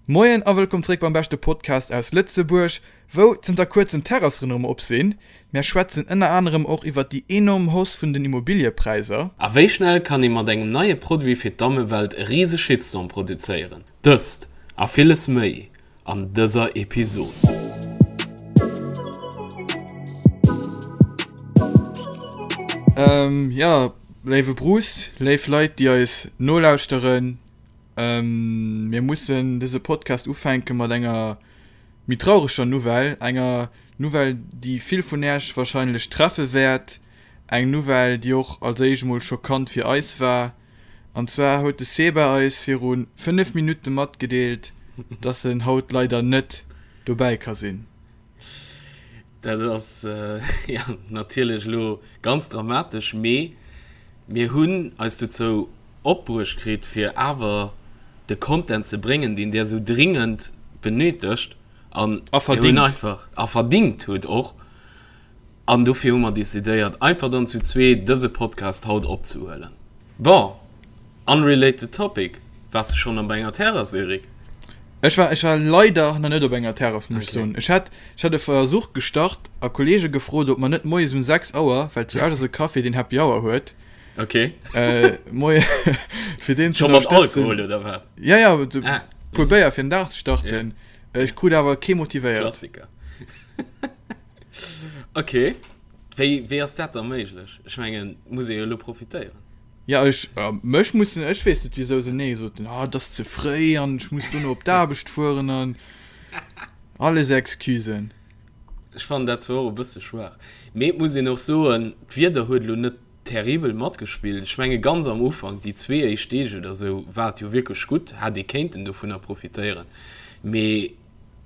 Moien a wëllkomm zréck beim beschte Podcast aus Lëtzebuerg, wou zënter kuerzem d'Terrassen erëm op sinn. Mär schwätzen ënner anerem och iwwert déi enorm Hausse vun den Immobiliëpräisser. A wéi schnell kann ee mat engem neie Produit fir d'Dammewelt e rise Shitstorm produzéieren? Dëst a villes méi an dëser Episod. Jo, léiwe Bruce, léif Leit déi eis nolauschteren, mir mussen dëse Podcast ufänke mat enger méi traureger Nouvelle, enger Nouvelle déi vill vun Äerch wahrscheinlech treffe wäert, eng Nouvelle déi och als éischt emol schockant fir eis war. An zwar huet de Seba eis viru 5 Minutte matgedeelt, dass en haut leider net dobäi ka sinn. Dat ass jo natierlech elo ganz dramatesch, mee mir hunn eis dozou opbruecht kritt, fir awer de Content ze bréngen, deen där esou dringend benötegt an A verdingt. einfach a verdingt hutt och. An dofir hu mer decidéiert, einfach dann zu zwee dëse Podcast haut opzehuelen. Bon, unrelated topic, Waars de schonn op enger Terrass, Eric? Ech war, ech war leider nach net op enger Terrass, muss ech soen. Ech hat, ech hat e Versuch gestart a Kollege gefrot, ob mer net moies um 6 Auer, well zu Esch ass e Café, deen Happy Hour huet, Okay. moie fir deen ze Scho mat ënnerstëtzen. Alkohol, oder wat? Ja, ja, e Ah. puer Béier fir den Dag ze starten. Ech krut awer kee motivéiert. Klassiker. Ok, wéi, wéi ass dat da méiglech? Ech mengen, muss ee jo elo profitéieren. Ja, ech, mech mussen, ech weess net wisou se nee soten, ah et ass ze fréi an ech muss dono op d'Aarbecht fueren an alles Excusen. Ech fannen dat zwar och e bësse schwaach, mee et muss een och soen, d'Wieder huet elo net terribel matgespillt. Ech menge ganz am Ufank, déi zwee éischt Deeg oder sou, war et jo wierklech gutt, hätt ee kéinten dovunner profitéieren, mee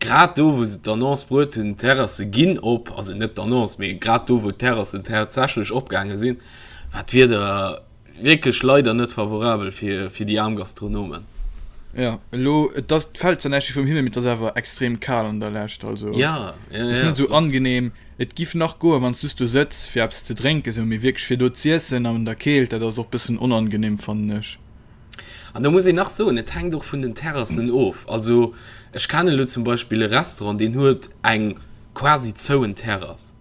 Grad do, wou se d'Annonce bruet hunn, d'Terrasse ginn op, also net d'Annonce, mee grad do, wou d'Terrassen tatsächlech opgaange sinn, war d'Wieder wierklech leider net favorabel fir déi aarm Gastronomen. Jo, elo, et ass, et fält zwar näischt vum Himmel, mee et ass awer extrem kal an der Lescht, also Ja, et ass net esou angenehm. Et giff nach goen, wann s du do sëtz fir eppes ze drénken, esou, mee wierklech fir do z'iessen an der Keelt, dat ass och bëssen onangenehm, fannen ech. An do muss een nach soen, et hänkt och vun den Terrassen of. Also ech kennen elo zum Beispill e Restaurant, deen huet eng quasi zouen Terrass.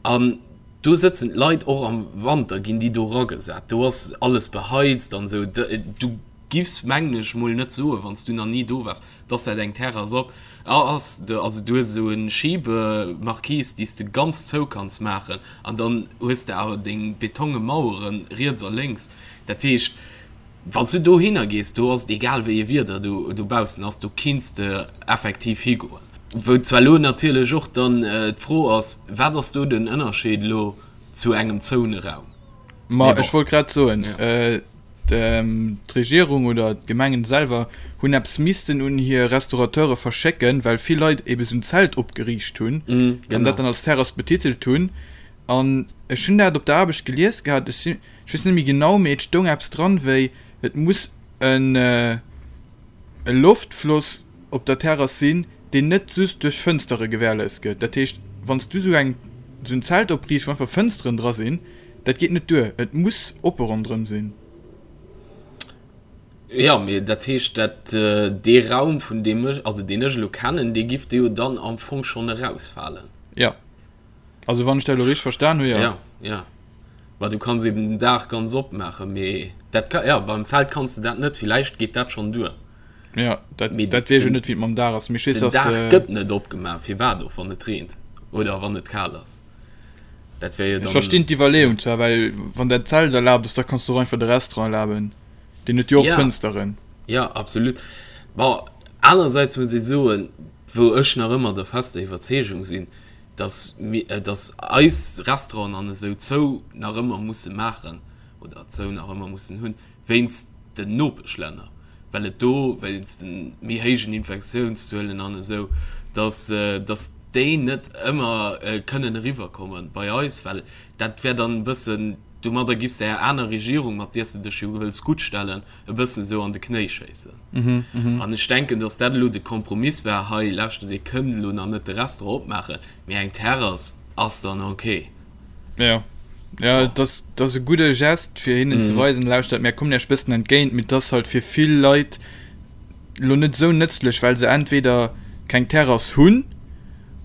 An do sëtzen d'Leit och am Wanter, ginn déi do eragesat. Do ass alles beheizt an esou. Du giffs, mengen ech, mol net soen, wann s du nach ni do waars, dass dat eng Terrass op ass. Also du hues esou e Schibemarquise, déi s de ganz zou kanns maachen. An dann hues de awer deng betonge Mauere riets a lénks. Dat heescht, wann s du dohinner gees, do ass et egal wéi e Wieder do dobaussen ass, do kinns de effektiv higoen. Wou zwar elo natierlech och dann d'Fro ass, wat ass do den Ënnerscheed elo zu engem zoune Raum? Ma ech wollt grad soen, d'Regierung oder d'Gemengen selwer hunn eppes missten un hir Restaurateure verschécken, well vill Leit ebe sou en Zelt opgeriicht hunn an dat dann als Terrass betitelt hunn. An ech hunn dat op der Aarbecht gelies gehat, ech si, ech weess net méi genau, mee et stoung eppes dran wéi, et muss en e Loftfloss op der Terrass sinn, deen net just duerch Fënstere gewährleist gëtt. Dat heescht, wann s du esou eng, esou en Zelt opriichts, wou einfach Fënsteren dra sinn, dat geet net duer, et muss oppe ronderëm sinn. Jo, mee dat heescht, dat dee Raum, vun deem ech, also deen ech elo kennen, dee giff jo dann am Fong schonn erausfalen. Jo. Also wann ech dat elo richteg verstan hu, jo. Ja, ja. Ma du kanns eben den Daach ganz opmaachen, mee dat ka, ja, beim Zelt kanns de dat net, villäicht geet dat schonn duer. Ja, dat, mee dat weess ech net, wéi et mam Daach ass, mee ech weess, den dass. Daach gëtt net opgemaach, firwat och, wann et reent oder wann et kal ass. Dat wär jo dann. Ech verstinn d'Iwwerleeung zwar, well wann dat Zelt erlaabt ass, da kanns du och einfach de Restaurant erlaben, deen huet jo och Ja. Fënsteren. Ja, absolut. Bon, anerersäits muss ee soen, wou ech nach ëmmer der fester Iwwerzeegung sinn, dass mir, dass eis Restauranten an esou zou nach ëmmer musse maachen oder zou nach ëmmer mussen hunn, wéinst den Nopeschlänner, well et do wéinst de méi héijen Infektiounszuelen an esou, dass, dass déi net ëmmer kënnen eriwwerkomme bei eis, well dat wär dann e bëssen, domadder giffs de är aner Regierung, mat där s de dech jo wëlls guttstellen, e bëssen esou an de Knéi schéissen. An ech denken, dass dat elo de Kompromiss war, hei, lauschtert, Dir kënnt elo nach net de Restaurant opmaachen, mee eng Terrass ass dann ok. Ja, ja, et ass, et ass e gudde Gest, fir hinnen ze weisen, lauschtert, mär kommen Iech bëssen entgéint, mee et ass halt fir vill Leit. elo net esou nëtzlech, well se entweder keng Terrass hunn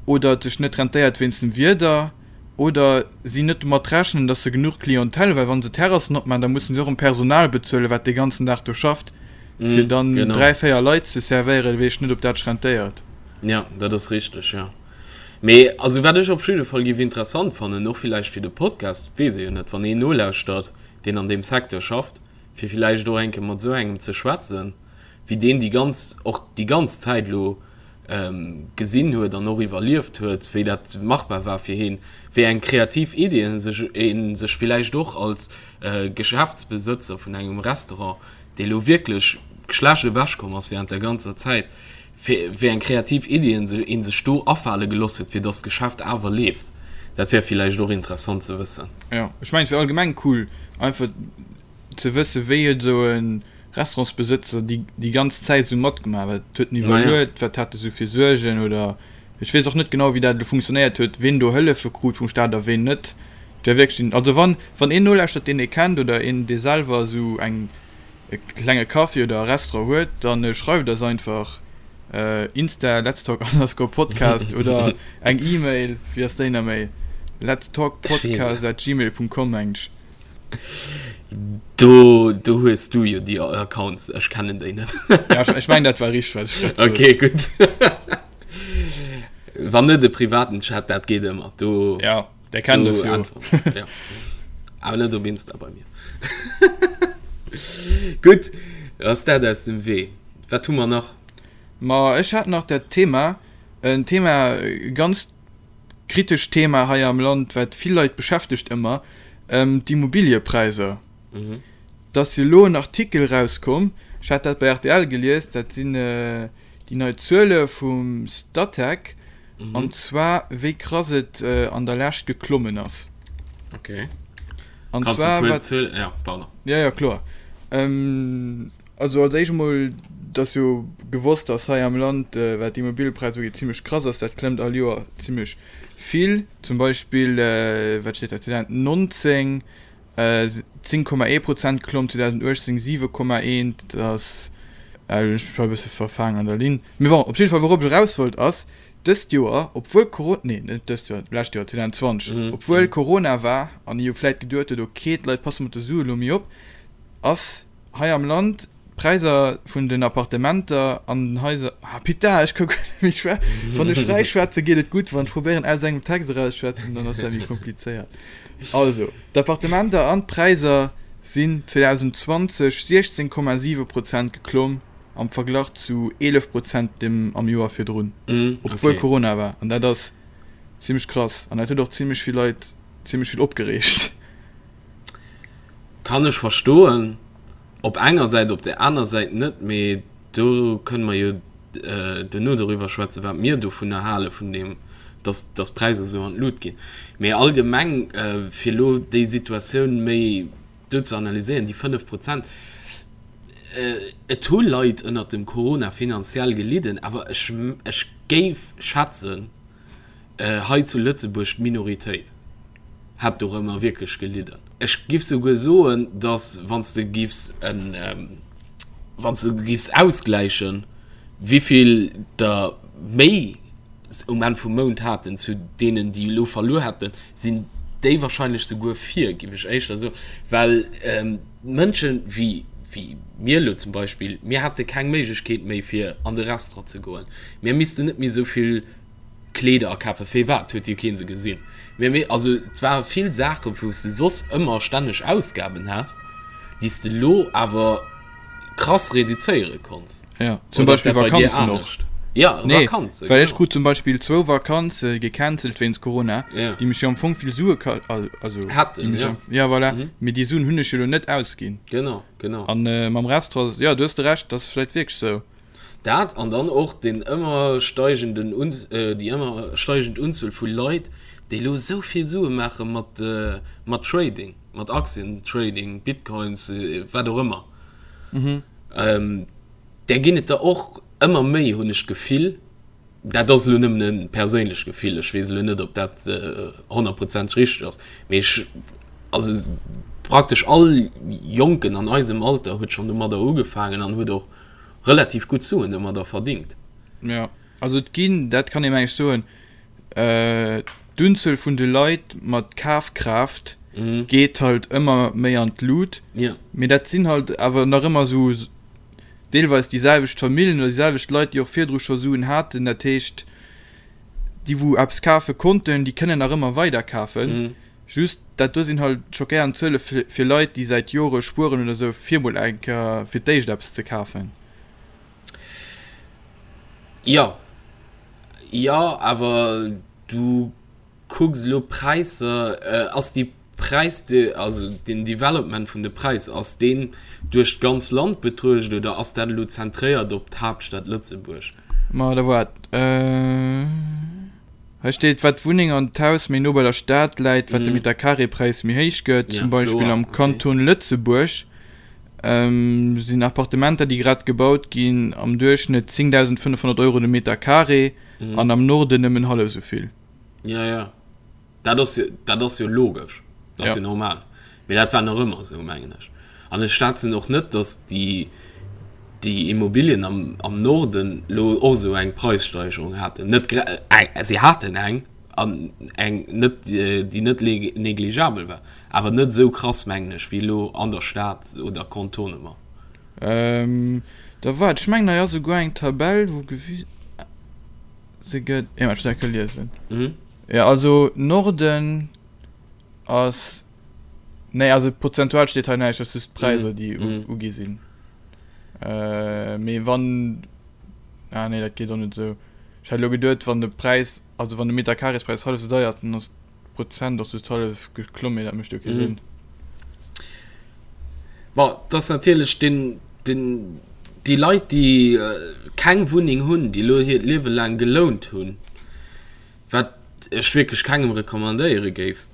oder et sech net rentéiert wéinst dem Wieder oder si net domat rechnen, dass se genuch Clientèle hunn, well wa se Terrassen opmaachen, da mussen se och erëm Personal bezuelen, wat dee ganzen Dag do schafft, fir dann 3, 4 Leit ze servéieren, weess ech net, ob dat sech rentéiert. Jo, dat ass richteg, jo. Mee also wat ech op jidde Fall géif interessant fannen, och villäicht fir de Podcast, weess ee jo net, wann een nolauschtert, deen an deem Secteur schafft, fir villäicht och eng Kéier mat esou engem ze schwätzen, wéi deen déi ganz, och déi ganz Zäit elo gesinn huet an och iwwerlieft huet, wéi dat machbar war fir heen, wéi eng kreativ Iddien sech ee sech villäicht och als Geschäftsbesëtzer vun engem Restaurant, dee lo wierklech schlecht ewechkomm ass während der ganzer Zäit, wéi eng kreativ Iddien ee sech do afale geloss huet, fir dass d'Geschäft awer leeft. Dat wär villäicht och interessant ze wëssen. Jo, ech mengen et wär allgemeng cool einfach ze wëssen, wéi huet esou e Restaurantsbesëtzer déi déi ganz Zäit esou matgemaach, wat huet en iwwerluet, wat hat e sou fir Suergen oder ech weess och net genau wéi dat elo funktionéiert huet, ween do Hëllefe krut vum Staat a ween net. Et wär wierklech, also wann wann een nolauschtert deen ee kennt oder een dee selwer esou eng e klenge Café oder e Restaurant huet, dann schreift eis einfach Insta letstalk underscore podcast oder eng E-Mail, wéi ass déi nach méi? letstalkpodcast at gmail punkt com mengt ech. Do, do hues du jo déi Accounts, ech kennen déi net. Ja, ech, ech mengen dat war richteg, wat ech grad sot. Okay, gutt. Wann net e privaten Chat, dat geet ëmmer. Do, Ja, der kennt do es jo. äntweren. Ja. Awer net op Insta bei mir. Gutt, ass dat aus dem Wee. Wat hu mer nach? Ma ech hat nach dat Thema, en Thema, ganz kritescht Thema hei am Land, wat vill Leit beschäftegt ëmmer, d'Immobiliëpräisser. Et ass jo elo en Artikel erauskomm, ech hat dat bei rtl gelies, dat sinn déi nei Zuele vum Statec, an zwar wéi krass et an der Lescht geklommen ass. Okay. An zwar wat. Ja, pardon. Ja, ja, kloer. Also als éischt emol, et ass jo gewosst, dass hei am Land, wat d'Immobiliëpräisser ugeet, zimlech krass ass. Dat klëmmt all Joer zimlech vill. Zum Beispill, wat steet hei, 2019 10,1 Prozent geklomm, 2018 7,1. Dat ass, elo hunn ech mech bal e bësse verfaangen an der Linn. Mee bon, op jidde Fall, wourop ech eraus wollt, ass, dëst Joer, obwuel Coro-, nee, net dëst Joer, d'lescht Joer, 2020, obwuel Corona war an ee jo vläit geduet huet, okay, d'Leit passe mat de Sue elo méi op, ass hei am Land d'Präisser vun den Appartementer an den Haiser, ah putain, ech ka guer net méi schwä-, wann ech fräi schwätze geet et gutt, wann ech probéieren aus engem Text erausschwätzen, dann ass dat méi komplizéiert. Also, d'Appartementer an d'Präisser sinn 2020 16,7 Prozent geklomm am Verglach zu 11 Prozent dem am Joer virdrun, obwuel Corona war. An dat ass zimmlech krass an dat huet och zimmlech vill Leit zimmlech vill opgereegt. Kann ech verstoen op enger Säit, op der aner Säit net, mee do kënne mer jo duerno doriwwer schwätzen, wat mir dovunner hale vun deem, dass dass d'Präisser esou an d'Lut ginn. Mee allgemeng, fir elo déi Situatioun méi do ze analyséieren, déi 5 Prozent, et hu Leit ënnert dem Corona finanziell gelidden, awer ech ech géif schätzen, hei zu Lëtzebuerg d'Minoritéit hätt dorëmmer wierklech gelidden. Ech giff souguer soen, datt wann s de giffs en, wann s de giffs ausgläichen, wéivill der méi um Enn vum Mount haten zu deenen, déi elo verluer hätten, sinn déi wahrscheinlech souguer vir, giff ech éischter soen, well Mënschen wéi wéi mir elo zum Beispill, mir hätte keng Méiglechkeet méi fir an de Restaurant ze goen, mir missten net méi esou vill Kleeder akafen, firwat huet jo keen se gesinn? Mee mee also et ware vill Saachen wou s de soss ëmmer stänneg Ausgaben has, déi s de lo awer krass reduzéiere konns. Ja, zum Oder ass Beispill dat bei dir Vakanzen och. anescht? Ja, Nee, Vakanzen, well ech genau. krut zum Beispill zwou Vakanze gecancelt wéinst Corona, Ja. déi mech jo am Fong vill Sue ka-, also déi Hätten, mech ja. am, ja voilà, mee déi Suen hunn ech jo lo net ausginn. Genau, genau. An mam Restaurant, jo, du hues de Recht, dat ass vläicht wierklech sou. Dat an dann och deen ëmmer steigenden, déi ëmmer steigend Unzuel vu Leit, déi elo esou vill Sue maache mat, mat Trading, mat Aktientrading, Bitcoins, wat och ëmmer. Där ginn et der och ëmmer méi, hunn ech d'Gefill. Dat ass elo nëmmen e perséinlecht Gefill, ech weess elo net, ob dat honnertprozenteg richteg ass, mee ech, also praktesch all Jonken an eisem Alter huet schonn domadder ugefaangen an huet och. relativ gutt Suen domadder verdingt. Jo, also et ginn, dat kann ee meng ech soen, d'Unzuel vun de Leit mat Kafkraaft geet halt ëmmer méi an d'Lut, mee dat sinn halt awer nach ëmmer esou deelweis déi selwecht Familljen oder déi selwecht Leit, déi och virdru scho Suen haten. Dat heescht, déi wou eppes kafe konnten, déi kënnen nach ëmmer weider kafen. Just dat do sinn halt schockéierend Zuele fir Leit, déi säit Jore spueren oder esou, fir mol eng Kéier fir d'éischt eppes ze kafen. Jo, jo, awer du kucks elo d'Präisser, ass déi Präis, also den Development vun de Präisser, ass deen duerch d'ganz Land betruecht oder ass dat elo zentréiert op d'Haaptstad Lëtzebuerg? Ma da waart, hei steet, wat d'Wunneng an d'Haus méi no bei der Stad läit, wat de Metercarré-Präis méi héich gëtt. Zum Beispill am Kanton Lëtzebuerg sinn Appartementer, déi grad gebaut ginn, am Duerchschnëtt 10.500 Euro de Meter carré an am Norden nëmmen hallef esou vill. Ja, ja. Dat ass jo, dat ass jo logesch. Dat ass jo normal. Mee dat war nach ëmmer esou, mengen ech. An ech schwätzen och net, datt déi, déi Immobilien am, am Norden elo och esou eng Preissteigerung haten. Net gra-, si haten eng, an eng net, déi net négligeabel war, awer net esou krass, mengen ech, wéi elo an der Stad oder Contournement. Da waart, ech mengen hei ass esouguer eng Tabell, wou gewise gëtt, jo, ech muss eng Kéier liesen. Jo, also Norden ass, nee, also prozentual steet hei näischt, dat ass just d'Präisser, déi ugi sinn. Mee wann, ah nee, dat geet och net esou. Ech hat elo geduet, wann de Präis, also wann de Meterkarespräis hallef esou deier ass, dann ass d'Prozent och just hallef geklomm, mee dat mécht jo kee Sënn. Bon, et ass natierlech den, den, déi Leit, déi keng Wunneng hunn, déi elo hiert Liewe laang gelount hunn, wat ech wierklech kengem recommandéiere géif,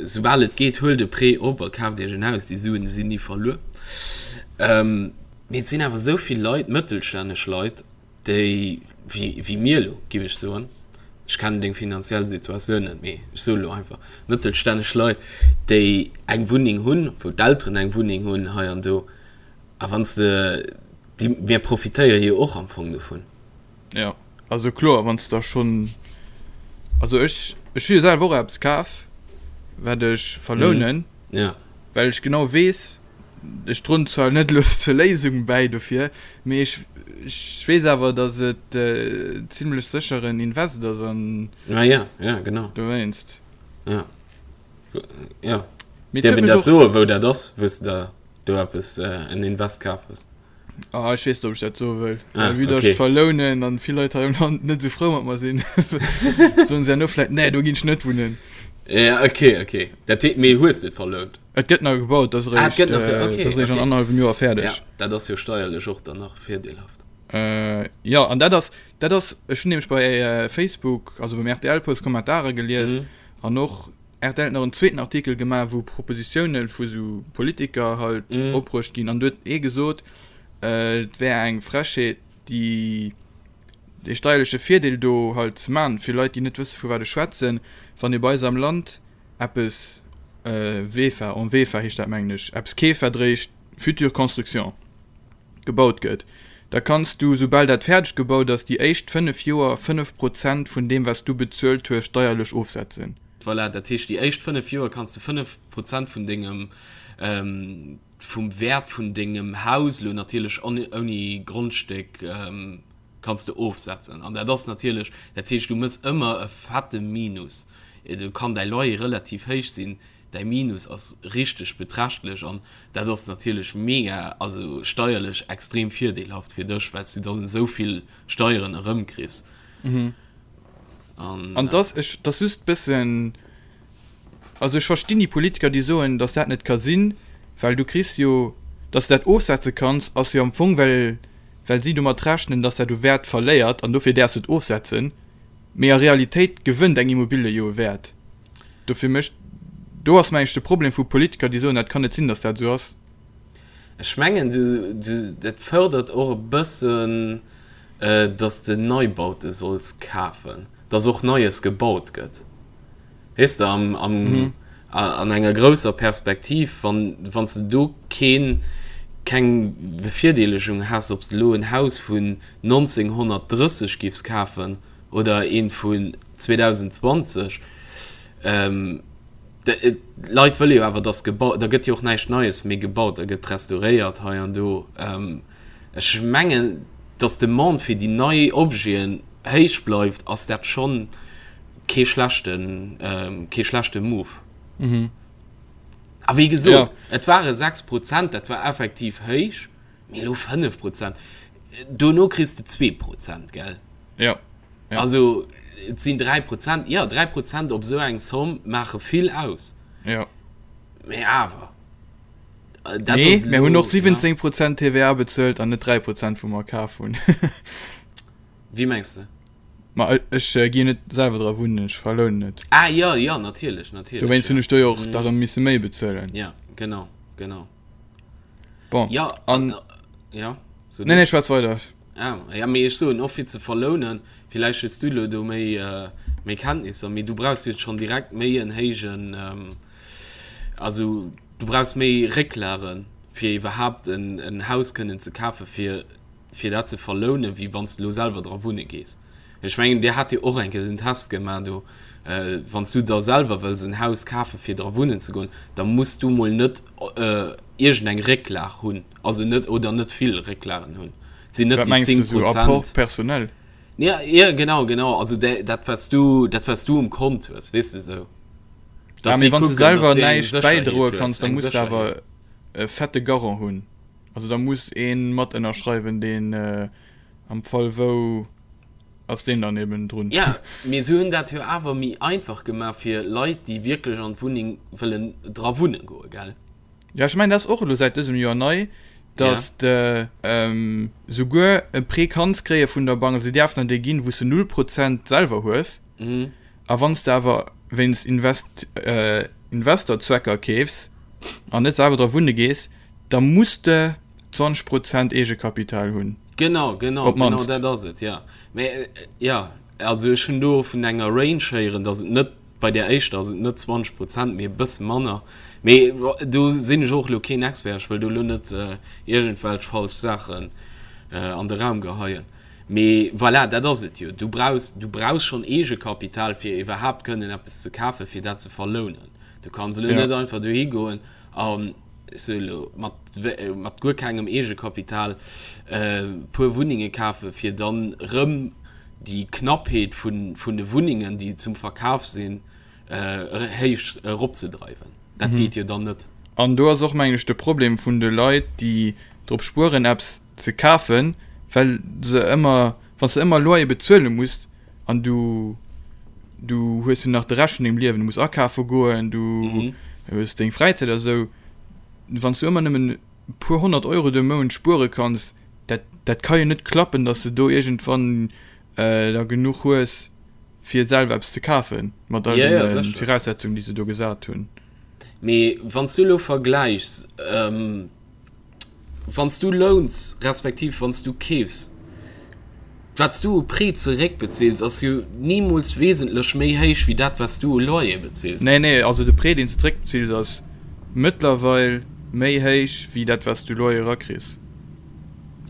soubal et geet, huelt e Prêt op a kaaft iech en Haus, déi Suen sinn ni verluer. Mee et sinn awer esou vill Leit, mëttelstänneg Leit, déi, wéi, wéi mir elo, giff ech soen, ech kennen deng finanziell Situatioun net, mee ech soe elo einfach, mëttelstänneg Leit, déi eng Wunneng hunn, wou d'Elteren eng Wunneng hunn hei an do, a wann s de, déi, mir profitéiere jo och am Fong dovun. Jo, also kloer, wann s de da schonn, also ech, ech hu jo selwer och eppes kaf, wat ech verlounen, well ech genau weess, Ech droen zwar net elo zur Léisung bäi dofir, mee ech weess awer, datt et zimlech sécher en Invest ass an Ah ja, ja, genau. dowéinst. Ja. Ja. Mee et Dierf huet een mech dat och. soen, wou dat ass, wou s de der do eppes, en Invest kaf hues? Ah, ech weess net, ob ech dat soe wëll. Ah, Well vue datt ech okay. verlounen an vill Leit hei am Land net esou frou mat mer sinn, soen se herno vläit, Nee, do ginn ech net wunnen. Ja, okay, okay. Dat heet, mee hues de et verlount? Et gëtt nach gebaut, dat ass Ah, et gëtt nach ge- okay, dat ass eréischt an okay. annerhallwem Joer fäerdeg. Ja, dat ass jo steierlech och dann nach virdeelhaft. Äh, jo, an dat ass, dat ass, ech hunn nämlech bei äh, Facebook, also beim RTL-Post Kommentare gelies Mhm. an och RTL huet nach en zweeten Artikel gemaach, wou Propositioune vu sou Politiker halt Mhm. opbruecht ginn an do huet ee gesot, äh, et wär eng Frechheet, déi dee steierleche Virdeel do halt ze man fir Leit, déi net wësse vu wat ech schwätzen, wann ee bei eis am Land eppes VEFA, en VEFA heescht dat mengen ech, eppes keeferdréicht, future construction, gebaut gëtt, da kanns du, soubal dat fäerdeg gebaut ass, déi éischt 5 Joer 5 Prozent vun deem wat s du bezuelt hues steierlech ofsetzen. Voilà, dat heescht déi éischt 5 Joer kanns du 5 Prozent vun dengem, vum Wäert vun dengem Haus, elo natierlech ouni Grondstéck, kanns de ofsetzen an dat ass natierlech, dat heescht du mëss ëmmer e fette Minus, do kann däi Loyer relativ héich sinn, däi Minus ass richteg beträchtlech an dat ass natierlech mega, also steierlech extrem virdeelhaft fir dech, well s du dann esou vill Steieren erëmkriss. An dass ech, dass just bëssen, also ech verstinn déi Politiker déi soen, dass dat net ka sinn, well du kriss jo, dass de dat ofsetze kanns ass jo am Fong well, well si domat rechnen, dass dat u Wäert verléiert an dofir däerfs du et ofsetzen, mee a Realitéit gewënnt eng Immobilie jo u Wäert. Dofir mécht, do ass mengen ech de Problem vu Politiker, déi soen, dat kann net sinn, dass dat esou ass. Ech mengen, du, du, dat fërdert och e bëssen, dass de Neibaute solls kafen, dass och Neies gebaut gëtt. Weess de, am, am, an enger grousser Perspektiv, wann, wann s de do keen. keng Bevirdeelegung häss, ob s de elo en Haus vun 1930 giffs kafen oder eent vun 2020. D'Leit wëlle jo awer, dass gebaut, da gëtt jo och näischt Neies méi gebaut, da gëtt restauréiert hei an do. Ech mengen, dass d'Demande fir déi nei Objeten héich bleift, ass dat schonn kee schlechten, kee schlechte Move. A wéi gesot, et ware 6 Prozent, dat war effektiv héich, mee elo 5 Prozent, dono kriss de 2 Prozent, gell? Jo. Ja. Also et sinn 3 Prozent, jo 3 Prozent op esou eng Somm maache vill aus. Jo. Mee awer. Dat nee, ass mir hunn och 17 Prozent TVA bezuelt an net 3 Prozent wou mer kaf hunn. Wéi mengs de? Ma ech ginn net selwer dra wunnen, ech verlounen et. Ah jo, jo, natierlech, natierlech. Dowéinst hunn ech do jo och da rëm misse méi bezuelen. Ja, genau, genau. Bon, ja, an, ja, so nee, nee, schwätz weider. Ah, ja, mee ech soen och fir ze verlounen, villäicht hues du elo do méi, méi Kenntnisser, mee du brauchs jo schonn direkt méi en héijen, also du brauchs méi Récklagen, fir iwwerhaapt en, en Haus kënnen ze kafen, fir, fir dat ze verlounen, wéi wann s de elo selwer dra wunne gees. Ech mengen, Dir hat jo och eng Kéier den Test gemaach do, wann s du der selwer wëlls en Haus kafen, fir dra wunnen ze goen, da muss du mol net iergendeng Récklag hunn. Also net, oder net vill Récklagen hunn. Et sinn net Wat déi mengs 10 du, sou Apport Prozent. personnel? Ja, ja, genau, genau. Also dä, dat wat s du, dat wat s du um Kont hues, weess de sou. Ah, Dass mee si wann s du kucken, selwer dass du eng näischt Sécherheet bäidroe hues, kanns, da eng muss de awer Sécherheet. e fette Garant hunn. Also da muss ee mat ënnerschreiwen, deen am Fall wou, ass deen dann eben drun. Ja, mee se hunn dat jo awer méi einfach gemaach fir Leit, déi wierklech an d'Wunneng wëllen dra wunne goen, gell? Jo, ech mengen, dat ass och elo säit dësem Joer nei, dass de souguer e Prêt kanns kréie vun der Bank, also si däerfen der dee ginn, wou s de null Prozent selwer hues. A wann s de awer wéinst Invest, Investorzwecker keefs an net selwer dra wunne gees, da muss de 20 Prozent Eegekapital hunn. Genau, genau, Op genau d'mannst. dat ass et, jo. Mä jo, also ech hunn do vun enger Range héieren, dass et net Bei där éischter ass et net 20 Prozent, mee e bësse manner. Mee do sinn ech och elo keen Expert, ech wëll do elo net iergendwelch falsch Saachen an de Raum geheien. Mee voilà, dat ass et jo. Du brauchs, du brauchs schonn Eegekapital, fir iwwerhaapt kënnen eppes ze kafen, fir dat ze verlounen. Du kanns elo net einfach dohi goen an, ech soe elo, mat, mat guer kengem Eegekapital e puer Wunnenge kafen, fir dann erëm déi Knappheet vun de Wunnengen, déi zum Verkaf sinn, héich eropzedreiwen. Dat geet jo dann net. An do ass och, mengen ech, de Problem vun de Leit, déi drop spueren, eppes ze kafen, well se ëmmer, wann s de ëmmer Loyer bezuele muss an du, du hues jo nach de Rescht vun dengem Liewen, du muss akafe goen, du hues deng Fräizäit a sou, wann s du ëmmer nëmmen e puer 100 Euro de Mount spuere kanns, dat, dat ka jo net klappen, dass de do iergendwann da genuch hues, fir selwer eppes ze kafen, mat all Ja, ja, deene sécher. Viraussetzungen, déi se do gesat hunn. Mee wann s du elo vergläichs, wann s du louns, respektiv wann s du keefs, wat s du u Prêt zeréckbezils, ass jo nimools wesentlech méi héich wéi dat, wat s du u Loyer bezils. Nee, nee, also de Prêt, deen s de zeréckbezils, ass mëttlerweil méi héich wéi dat, wat s du Loyer erakriss.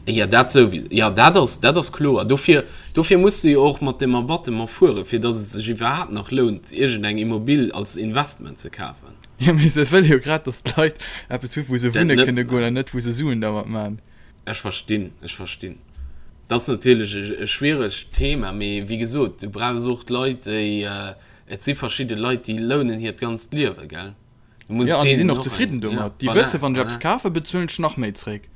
Jo, dat souwi, jo, dat ass, dat ass kloer. Dofir, dofir muss de jo och mat dem Abattement fueren, fir datt et sech iwwerhaapt nach lount, iergendeng Immobil als Investment ze kafen. Jo, mee se wëlle jo grad, datt d'Leit eppes hu wou se Dat wunne net kënne goen maachen. an net wou se Suen dermat man. Ech verstinn, ech verstinn. Dat ass natierlech e, e schwieregt Thema, mee wéi gesot, du brauchs och d'Leit, déi, et si verschidde Leit, déi lounen hiert ganzt Liewe, gell? Du muss ja, an déi sinn och zefridden domat. Déi wësse wann ech eppes kafe bezuelen ech nach méi zréck.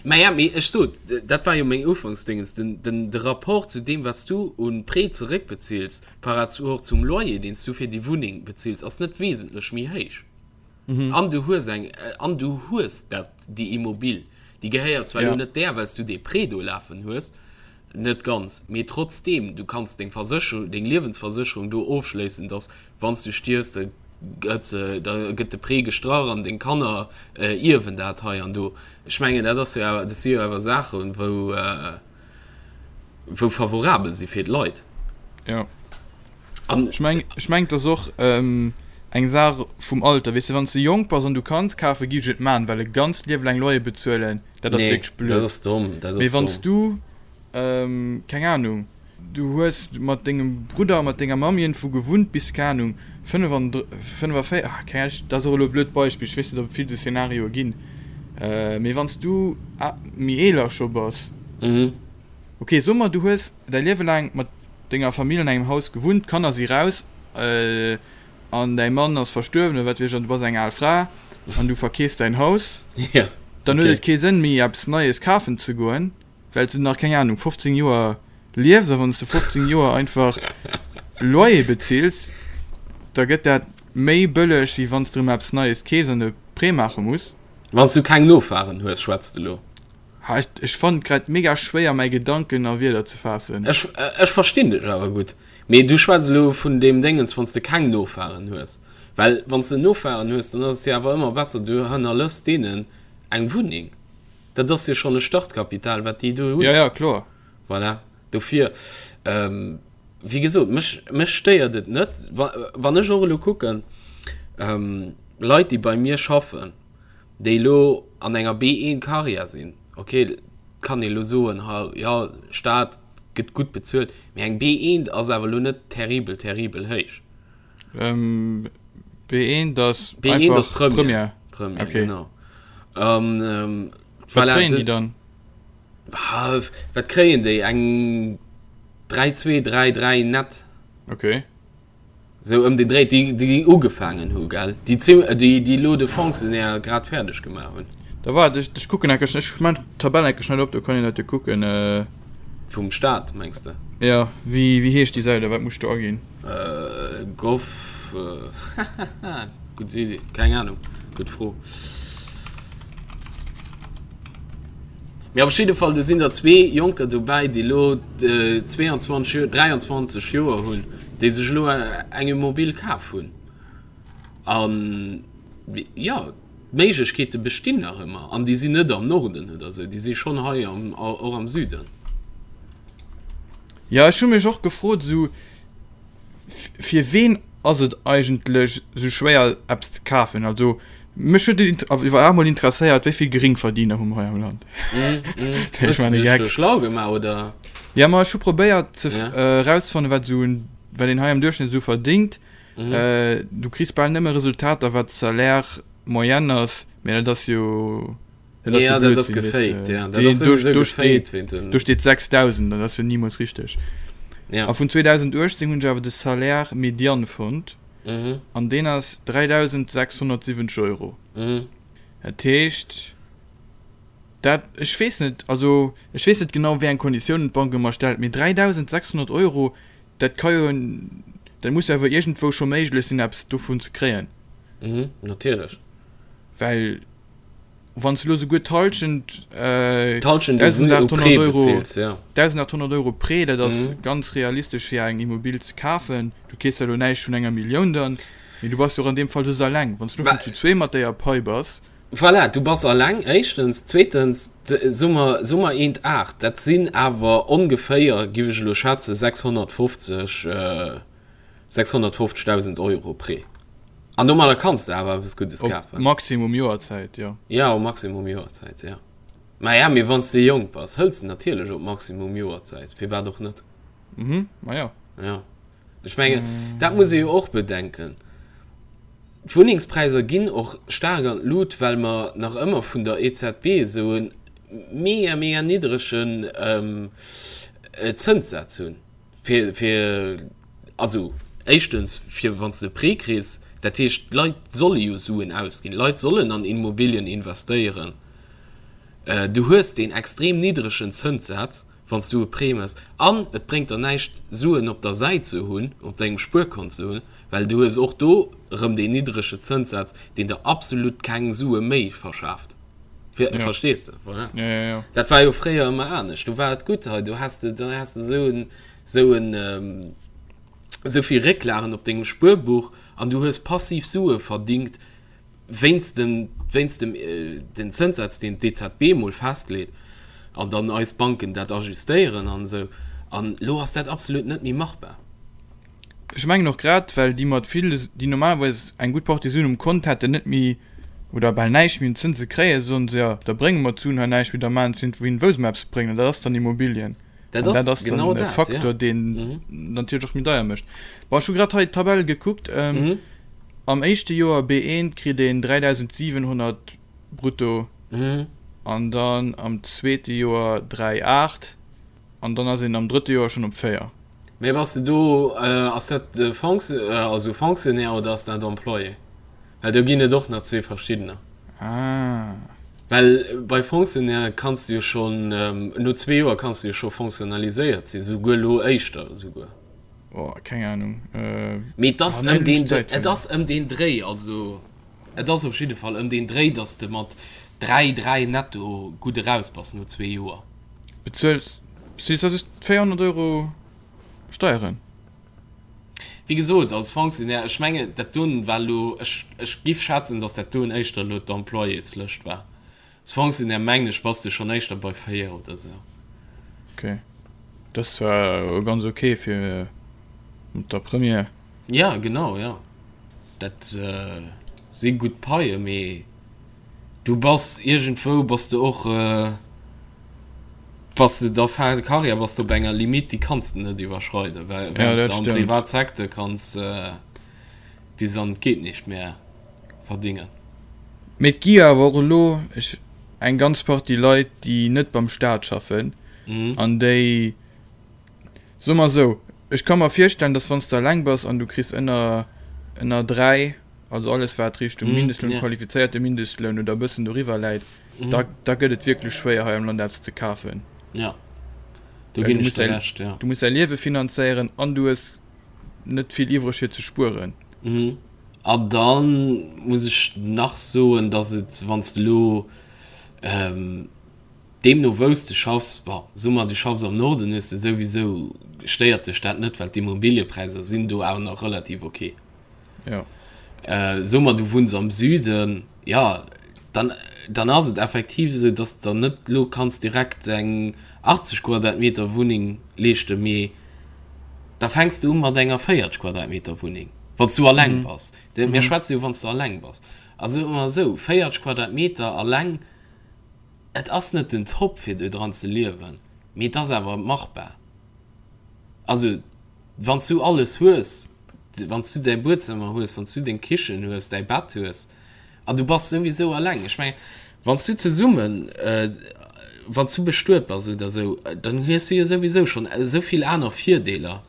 Maja, mee ech sot, dat war jo meng Ufanksdingens, den, den, de Rapport zu deem, wat s du un Prêt zeréckbezills par rapport zum Loyer, deen s du fir déi Wunneng bezills, ass net wesentlech méi héich. An du hues eng, an du hues dat, déi Immobil, déi gehéiert zwar elo net där, well s du dee Prêt do lafen hues, net ganz, mee trotzdeem, du kanns deng Versécherung, deng Liewensversécherung do ofschléissen, dass Wann s du stierfs, da gëtt se, da gëtt de Prêt gestrach an deng Kanner ierwen dat hei an do. Ech mengen, dat ass jo awer, dat si jo awer Saachen, wou, wou favorabel si fir d'Leit. Jo. An Ech meng, ech meng, et ass och. Eng Saach vum Alter, weess de, wann s de jonk bass an du kanns kafen, gi ech et man, well e ganzt Liewe laang Loyer bezuelen, dat ass Nee, wierklech dat blöd. ass domm, dat Mee ass wann s domm. du, keng Ahnung, du hues mat dengem Brudder a mat denger Mamm iergendwou gewunnt bis, keng Ahnung, 45, ah, keng Ahnung, dat ass och elo e blöd Beispill, ech weess net, ob et vill esou Szenarioe ginn, mee wann s du méi eeler scho bass, ok, soe mer, du hues däi Liewe laang mat denger Famill an engem Haus gewunnt, d'Kanner si raus, an däi Mann ass verstuerwen oder wat weess ech an du bass eng al Fra an du verkeefs däin Haus, Ja, dann huet okay. et kee Sënn méi eppes Neies kafen ze goen, well s du nach, keng Ahnung, 15 Joer liefs a wann s de 15 Joer einfach Loyer bezills, da gëtt dat méi bëlleg wéi wann s de erëm eppes Neies keefs an e Prêt maache muss. Wann s du keng Nofaren hues, schwätz de lo. Ha, ech, ech fannen et grad mega schwéier mäi Gedanken a Wierder ze faassen. Ech, ech verstinn dech awer gutt. Mee du schwätz elo vun deem Déngens, wann s de keng Nofaren hues. Well wann s de Nofaren hues, dann ass et jo awer ëmmer besser, du hannerlëss deenen eng Wunneng. Dat ass jo schonn e Startkapital, wat déi do hunn. Jo, jo, kloer. Voilà. Dofir, wéi gesot, mech, mech stéiert et net, wa, wann ech och elo kucken, Leit, déi bei mir schaffen, déi elo an enger B1 Karriär sinn, ok, kann ee elo soen, ha jo, Staat gëtt gutt bezuelt, mee eng B1 ass awer elo net terribel, terribel héich. B1 ass B1 einfach ass Première. Première. Première, Okay. genau. An ähm, Wat voilà, kréien déi de, dann? ah, wat kréien déi? Eng 3, 2, 3, 3 net. Okay. Sou ëm den Dréi, déi, déi ugefaangen hu, gell? Déi zim, déi, déi elo de Fonctionnaire grad fäerdeg gemaach hunn. Da waart, ech, ech kucken enke schnell, ech man d'Tabell enke schnell op, do kann een dat jo kucken. Vum Staat, mengs de? Jo, wéi, wéi heescht déi Säit a wat muss ech do aginn? Gov, hahaha, gutt Iddi, keng Ahnung, gutt Fro. Mee op jidde Fall, do sinn der zwee Jonker dobäi, déi elo 22 Joer, 23 Joer hunn, déi sech elo eng Immobilie kaf hunn. An, jo, d'Méiglechkeete bestinn nach ëmmer. An déi sinn net am Norden oder esou, déi si schonn hei am, och am Süden. Jo, ech hu mech och gefrot, esou, Fir ween ass et eigentlech sou schwéier eppes ze kafen? Also mech huet et iwwer emol interesséiert, wéi vill Geringverdiener hu mer hei am Land? Hues de dech do schlau gemaach oder? Jo, ma ech hu probéiert ze erauszefannen, wat esou wat een hei am Duerchschnëtt esou verdéngt. Du kriss bal nëmme Resultater wat d'Salaire moyenne ass, mä dat ass jo. Dat ass ja, dat ass gefaked, ja. Dat ass do, do steet, do steet 6000, dat ass jo niemals richteg. Ja. A vun 2018 hunn ech awer de Salaire médian fonnt. Mhm. An deen ass 3670 Euro. Mhm. Dat heescht, dat, ech weess net, also ech weess net genau, wéi eng Konditiounen d'Bank ëmmer stellt, mee 3600 Euro, dat ka jo, dat muss jo awer iergendwou scho méiglech sinn, eppes dovun ze kréien. Mhm, natierlech. Well Wann s du elo souguer d'Hallschent, D'Hallschent u Prêt bezilt, ja. 1.800 Euro Prêt, dat ass ganz realistesch fir eng Immobil ze kafen. Du keefs jo elo näischt vun enger Millioun dann, mee du bass jo och an deem Fall soss eleng. Wann s du elo schonn zu zwee mat déier Pai bass. Voilà, du bass eleng, éischtens. Zweetens, soe mer, soe mer eent aacht, dat sinn awer ongeféier, giff ech elo schätzen, 650, 650.000 Euro Prêt. An domadder kanns de awer eppes Guddes kafen. Op Maximum Joerzäit, jo. Ja, op Maximum Joerzäit, ja. Ma ja, mee wann s de jonk bass, hëls de natierlech op Maximum Joerzäit. Firwat och net? Mhm, ma jo. Ja. Ech mengen, dat muss ee jo och bedenken. D'Wunnengspräisser ginn och staark an d'Lut, well mer nach ëmmer vun der EZB esou e mega, mega niddregen Zënssaz hunn. Fir, fir, also éischtens, fir wann s de e Prêt kriss, dat heescht, d'Leit solle jo Suen ausginn, d'Leit sollen an Immobilien investéieren. Du hues deen extrem niddregen Zënssaz, wann s du e Prêt méchs, an et bréngt der näischt, Suen op der Säit ze hunn, op dengem Spuerkont ze hunn, well du hues och do erëm deen niddrege Zënssaz, deen der absolut keng Sue méi verschaaft. Ja. Verstees de? Voilà. Ja, ja, ja. Dat war jo fréier ëmmer anescht. Do war et gutt hei, do has de, da has de sou en, sou en, ähm, sou vill Récklagen op dengem Spuerbuch an du hues passiv Sue verdingt wéinst dem, wéinst dem, äh, den Zënssaz, deen d'EZB mol festleet an dann eis Banken dat ajustéieren an esou. An elo ass dat absolut net méi machbar. Ech mengen och grad well déi mat vill, déi normalerweis eng gutt Partie Suen um Kont hätten, net méi oder bal näischt méi un Zënse kréien, soen se, jo da brénge mer d'Suen hei näischt méi, da maachen se wouhin wou se mer eppes bréngen an dat ass dann Immobilien. Dat An dat ass ass dann genau e dat, ja. Faktor, deen natierlech och méi deier mécht. Bon, ech hu grad hei d'Tabell gekuckt, am éischte Joer B1 kritt een 3.700 brutto an dann am zweete Joer 3,8. An dann ass een am drëtte Joer schonn op 4. Mee bass de do, ass dat also Fonctionnaire oder ass dat Employé? Well do ginn et och nach zwee verschiddener. Ah. Well bei Fonctionnaire kanns de jo schonn, no zwee Joer kanns de jo scho fonctionnaliséiert sinn, souguer elo éischter esouguer. Oh, keng Ahnung. Mee et ass ëm deen, et ass ëm deen Dréi, also et ass op jidde Fall ëm deen Dréi, datt s de mat 3, 3 netto gutt eraus bass no zwee Joer. Bezuels bezuels da just 400 Euro Steieren? Wéi gesot, als Fonctionnaire, ech mengen dat doen war elo, ech ech giff schätzen, datt dat doen éischter elo d'Employéslëscht war. Als Fonctionnaire mengen ech bass de schonn éischter bei 4 oder sou. Ok, dat ass zwar ganz ok fir mat der Première. Ja genau, jo dat si gutt Paie, mee Du bass iergendwou bass de och, bass de da fin de carrière bass de op enger Limite, déi kanns de net iwwerschreiden, well Ja, während s dat de am stëmmt. Privatsecteur kanns bis an d'geet nicht mehr verdingen. Mee et gi jo awer och elo ech eng ganz Partie Leit, déi net beim Staat schaffen an déi, soe mer esou, ech ka mer virstellen, datt wann s de eleng bass an du kriss ënner ënner 3, also alles wat Richtung Mindestloun, qualifizéierte Mindestloun oder e bëssen doriwwer läit, da da gëtt et wierklech schwéier hei am Land eppes ze kafen. Ja, do Well ginn du ech muss der däi Recht, ja. du muss däi Liewe finanzéieren an du hues net vill iwwreg fir ze spueren. An da muss ech nach soen, datt et, wann s de elo deemno wou s de schaffs, bon, soe mer du schaffs am Norden, hues de souwisou, stéiert dech dat net, well d'Immobiliëpräisser sinn do awer nach relativ ok. Ja. Äh, so mer du wunns am Süden, ja, dann, dann ass et effektiv esou, dass der net lo kanns direkt eng 80 Quadratmeter Wunneng leeschten, mee da fänks du u mat enger 40 Quadratmeter Wunneng, wann s du alleng bass. Mir schwätze jo wann s du alleng bass. A soe mer esou, 40 Quadratmeter alleng, et ass net den Top fir do dran ze liewen, mee et ass awer machbar. Also wann s du alles hues, wann s du däi Buedzëmmer hues, wann s du deng Kichen hues, däi Bett hues an du bass souwisou alleng. Ech mengen, wann s du zesummen, wann s du bestuet bass oder esou, dann hues du jo souwisou schonn esou vill aner Virdeeler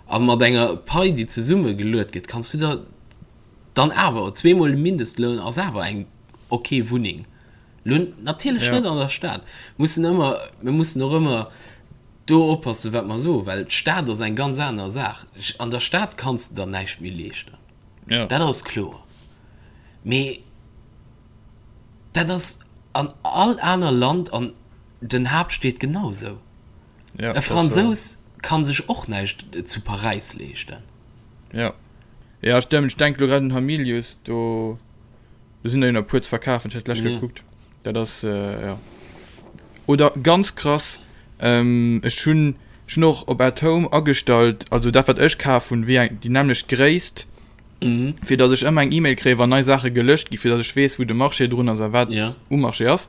a mat enger Pai, déi zesummegeluet gëtt, kanns du der dann awer, zweemol de Mindestloun ass awer eng ok Wunneng. Lo natierlech net an der Stad. Mussen ëmmer, mir mussen och ëmmer do oppassen, wat mer soen, well d'Stad ass eng ganz aner Saach. An der Stad kanns de der näischt méi leeschten, ja. dat ass kloer. Mee dat ass an all aner Land an den Haaptstied genau esou. Ja, E Fransous ka sech och näischt zu Paräis leeschten. Ja, ja stëmmt. Ech denke lo grad un Hamilius, do. Do sinn der jo nach e puer ze verkafen, ech hat d'lescht gekuckt. Dat ass, jo. Oder ganz krass, ech hunn, ech hunn och op At Home agestallt, also dat wat ech kaf hunn, wéi eng, déi nämmlecht Gréisst, fir datt ech ëmmer eng E-Mail kréien, wann nei Saache gelëscht ginn, fir datt ech weess, wou de Marché drun ass a wat um Marché ass.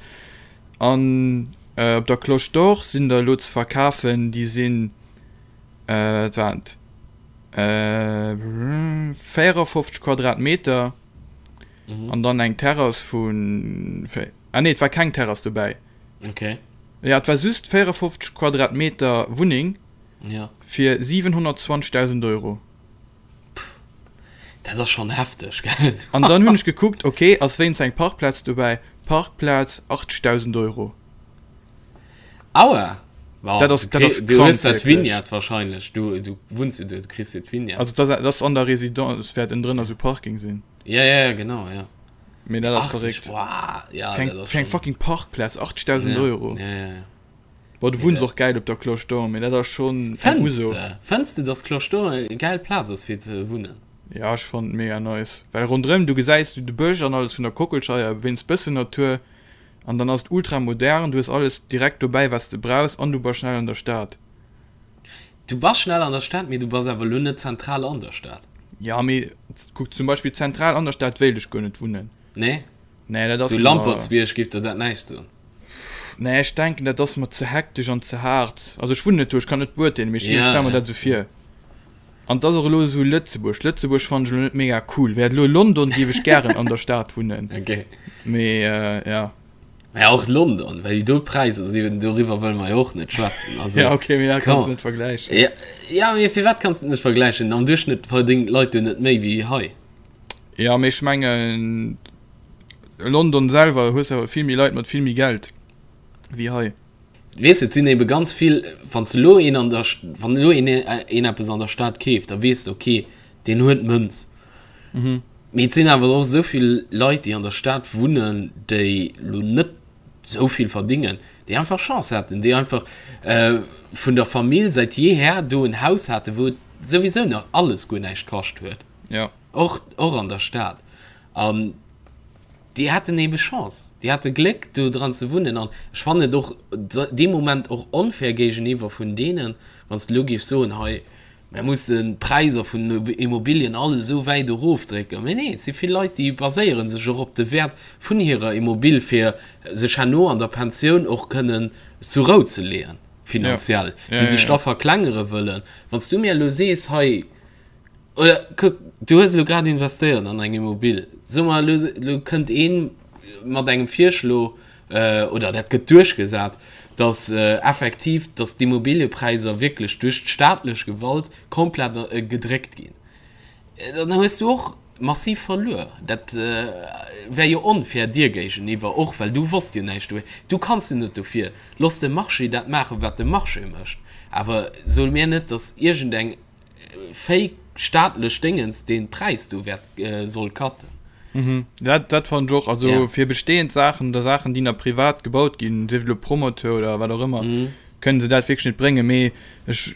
An op der Cloche d'Or sinn der elo ze verkafen, déi sinn, wat waren et, 54 Quadratmeter. Mhm. An dann eng Terrass vun. Ah nee, et war keng Terrass dobäi. Okay. Ja, et war just 54 Quadratmeter Wunneng. Ja. Fir 720.000 Euro. Pff, dat ass schon hefteg, gell? An dann hunn ech gekuckt, okay, ass wéinst eng Parkplaz dobäi? Parkplaz 80.000 Euro. Aua! Wow, dat ass, dat ass du hues dat Vignette wahrscheinlech. Du, du wunns jo do, du kriss jo d'Vignette. Also dat ass, dat ass an der Résidence, wäert ënnendrënner sou Parking sinn. Ja, ja, ja, genau, ja. Mee dat ass verréckt. Wow, ja, fir eng, fir eng fucking Parkplaz 80.000 ja, Euro. Ja, ja, ja. Boah, du wunns och gäil op der Cloche d'Or, mee dat ass schonn eng Uso. Fënns de, dass Cloche d'Or eng gäil Plaz ass fir ze wunnen? Ja, ech fannen et mega nice. Well ronderëm, du gesäis du de Bësch an alles vun der Kockelscheier, wéinst bëssen Natur. An dann ass et ultra modern, du hues alles direkt dobäi wat s de brauchs an du bass schnell an der Stad. Du bass schnell an der Stad, mee du bass awer elo net zentral an der Stad. Ja, mee kuck zum Beispill zentral an der Stad wéilt ech guer net wunnen. Nee? Nee, dat ass Sou mer. Lampertsbierg géif der dat näischt soen? Nee, ech denken dat ass mer ze hektesch an ze haart. Also ech wunnen net do, ech kann net beurteelen, mee ech Ja, stelle mer ja. dat esou vir. An et ass och elo esou Lëtzebuerg. Lëtzebuerg fannen ech elo net mega cool. Wär et elo London, géif ech gären an der Stad wunnen. Okay. Mee ja. Mä och London, well déi do Präisser sinn, doriwwer wëlle mer jo och net schwätzen. Also, Ja, okay, mee dat kanns come du net vergläichen. Ja, ja, mee firwat kanns du et net vergläichen? Am Duerchschnëtt verdéngen d'Leit do net méi wéi hei. Ja, mee ech mengen, London selwer hues awer vill méi Leit mat vill méi Geld wéi hei. Weess de, et sinn ebe ganz vill, wann s de elo een an der, wann elo een een eppes an der Stad keeft, da weess de, okay, deen huet Mënz. Mee et sinn awer och esou vill Leit, déi an der Stad wunnen, déi elo net esou vill verdingen, déi einfach Chance haten, déi einfach vun der Famill säit jeher do en Haus haten, wou et souwisou nach alles guer näischt kascht huet, och, och an der Stad. An Déi haten ebe Chance, déi hate Gléck do dran ze wunnen an ech fannen et och dee Moment och onfair géigeniwwer vun deenen, wann s de elo géifs soen, hei mär mussen d'Präisser vun den Immobilien all esou wäit erofdrécken. Mee nee, et si vill Leit, déi baséiere sech och op de Wäert vun hirer Immobill fir sech herno an der Pensioun och kënnen zur Rou ze leeën finanziell, déi sech da verklengere wëllen. Wann s du mir elo sees, hei Oder kuck, du hues elo grad investéiert an eng Immobil. Soe mer elo, elo kënnt ee mat engem Virschlo, oder dat gëtt duerchgesat, datt effektiv, datt d'Immobiliëpräisser wierklech duerch d'staatlech Gewalt komplett gedréckt ginn. Dann hues du och massiv verluer. Dat wär jo onfair dir géigeniwwer och, well du wosst jo näischt dofir. Du kanns jo net dofir. Looss de Marché dat maachen, wat de Marché mécht. Awer so mir net, datt iergendeng fake staatlech Déngens deen Präis do wäert soll cutten. Mhm. Dat, dat fannen ech och. Also ja. fir bestehend Saachen oder Saachen, déi nach privat gebaut ginn, sief et elo Promoteur oder wat och ëmmer, mhm. kënnen se dat wierklech net bréngen. Mee ech,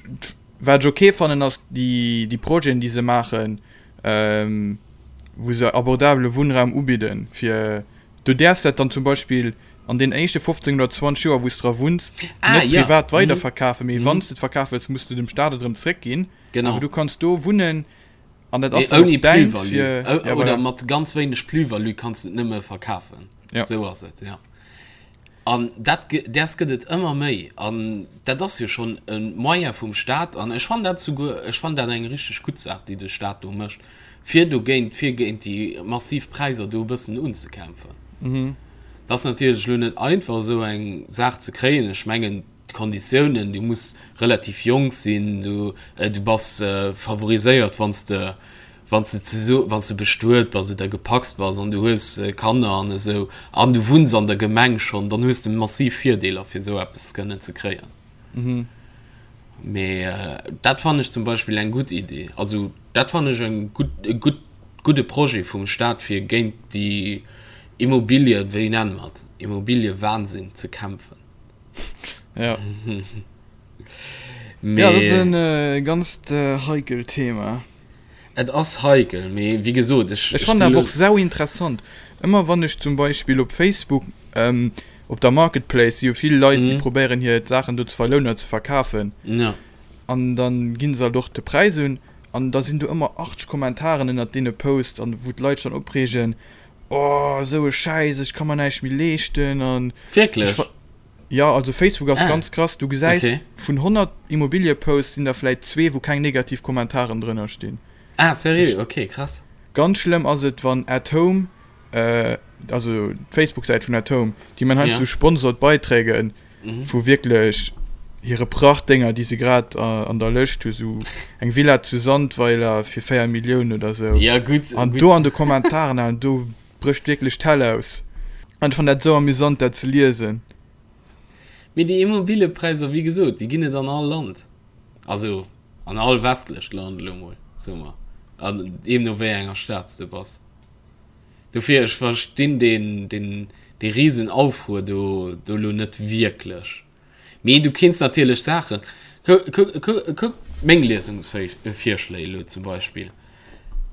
wat ech okay fannen, ass déi, déi Projeten, déi se maachen, ähm, wou se abordabele Wunnraum ubidden, fir du däerfs dat dann zum Beispill an den éischte 15 oder 20 Joer, wou s dra wunns, ah, net ja. privat mhm. weiderverkafen, mee mhm. wann s de et verkafe wëlls, muss du dem Staat et erëm zréckginn. Genau. Awer du kanns do wunnen an dat ass Mee ouni däint Plus-value. fir O ja, oder voilà. mat ganz wéineg Plus-value kanns de et nëmme verkafen. Ja. Sou ass et, ja. An dat, däers gëtt et ëmmer méi. An dat ass jo schonn e Moyen vum Staat. An ech fannen dat souguer, ech fannen dat eng richteg gutt Saach, déi de Staat do mécht, fir dogéint, fir géint déi massiv Präisser do e bëssen unzekämpfen. Et ass natierlech elo net einfach, esou eng Saach ze kréien. Ech mengen, d'Konditiounen, du muss relativ jonk sinn, du, du bass favoriséiert, wann s de, wann s de zesu, wann s de bestuet bass oder gepacst bass an du hues Kanner an esou an du wunns an der Gemeng schonn, dann hues de massiv Virdeeler, fir esou eppes kënnen ze kréien. Mee dat fannen ech zum Beispill eng gutt Idee. Also dat fannen ech eng gutt, e gutt, gudde Projet vum Staat, fir géint déi Immobilien, wéi nenne mer et, Immobiliewahnsinn ze kämpfen. Ja. Mee Ja, dat ass en ganzt heikelt Thema. Et ass heikel, mee wéi gesot, ech, Ech ech fannen sinn awer elo. och sau interessant, ëmmer wann ech zum Beispill op Facebook, op der Marketplace si jo vill Leit, déi probéieren hir Saachen do ze verlounen oder ze verkafen, Ja. an dann ginn se halt och de Präis un, an da sinn do ëmmer 80 Kommentaren ënnert deene Posts, an wou d'Leit sech dann opreegen, oh esou e Schäiss, ech ka mer näischt méi leeschten an ech Wierklech? ver. Jo, also Facebook ass Ah, ganz krass, du gesäis okay. vun 100 Immobilieposts sinn der vläit zwee wou keng negativ Kommentaren drënner stinn. Ah, seriö? Okay, krass. Ganz schlëmm ass et wann At Home, also d'Facebook-Säit vun At Home, déi man heiansdo Ja. sponsored Beiträge Mhm. vu wierklech hire Prachtdénger déi se grad an der Lëscht hu, sou eng Villa zu Sandweiler fir 4 Milliounen oder sou. Ja, gutt, An gutt. do an de Kommentaren, an do Brécht wierklech d'Hell aus. An ech fann dat esou amüsant dat ze liesen. Mee déi Immobiliepräisser, wéi gesot, déi ginn et an all Land, also an all westlecht Land elo mol, soe mer, an deemno wéi enger Stad s de bass. Dofir, ech verstinn deen, deen, dee Risenaufruer do, do elo net wierklech. Mee du kinns natierlech Saachen, kuck meng Liesungsvirschléi elo zum Beispill,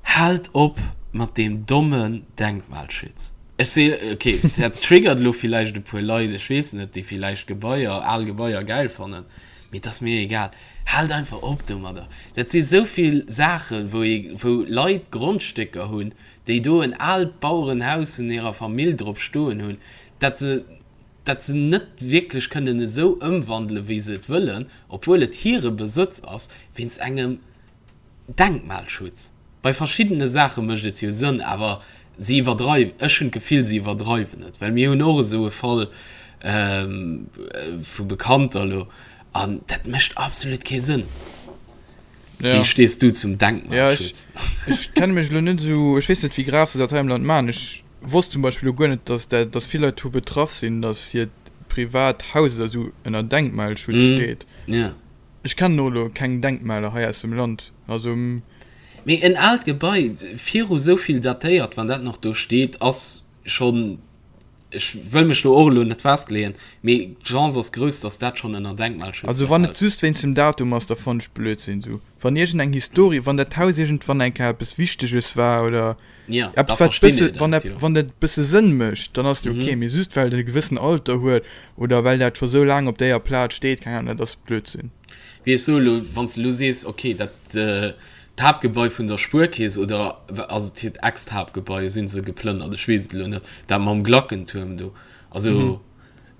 Haalt op mat deem dommen Denkmalschutz. Ech si, ok, dat triggert elo villäicht e puer Leit, ech weess net, déi villäicht Gebaier, al Gebaier gäil fannen. Mee et ass mir egal. Haalt einfach op domadder. Dat si sou vill Saachen, wou ee, wou Leit Grondstécker hunn, déi do en aalt Bauerenhaus vun hirer Famill drop stoen hunn, dat se, dat se net wierklech kënnen esou ëmwandelen, wéi se et wëllen, obwuel et hire Besëtz ass, wéinst engem Denkmalschutz. Bei verschiddene Saache mécht et jo Sënn, awer si iwwerdreiwen, ech hunn d'Gefill, si iwwerdreiwen et, well mir hunn och esou e Fall vu Bekannter elo an dat mécht absolut kee Sënn. Ja. Wéi stees du zum Denkmalschutz? Ja, ech, ech kenne mech elo net esou, ech weess net, wéi grav se dat hei am Land maachen. Ech wosst zum Beispill elo guer net, dass dat, dass vill Leit dovu betraff sinn, dass hiert privat Haus oder esou ënner Denkmalschutz steet. Ja. Ech kennen och elo keng Denkmaler hei aus dem Land, also. Mee en aalt Gebai, viru sou vill datéiert, wann dat nach do steet, ass schonn, ech wëll mech do och elo net festleeën, mee d'Chance ass grouss, datt dat schonn ënner Denkmalschutz Also wann et just wéinst dem Datum ass, da fannen ech Blödsinn esou. Wann iergend eng Historie, wann dat Haus iergendwann eng Kéier eppes Wichteges war oder eppes wat bësse, wann dat, wann dat bësse Sënn mécht, dann ass et ok. Mee just well et e gewëssen Alter huet oder well dat scho sou laang op déier Plaz steet, keng Ahnung, dat ass Blödsinn. Wéi ech soe lo, wann s de lo sees, ok, dat d'Haaptgebai vun der Spuerkeess, oder ass et hiert Ex-Haaptgebai, sinn se geplënnert, ech weess et elo net, dat mam Glackentuerm do, also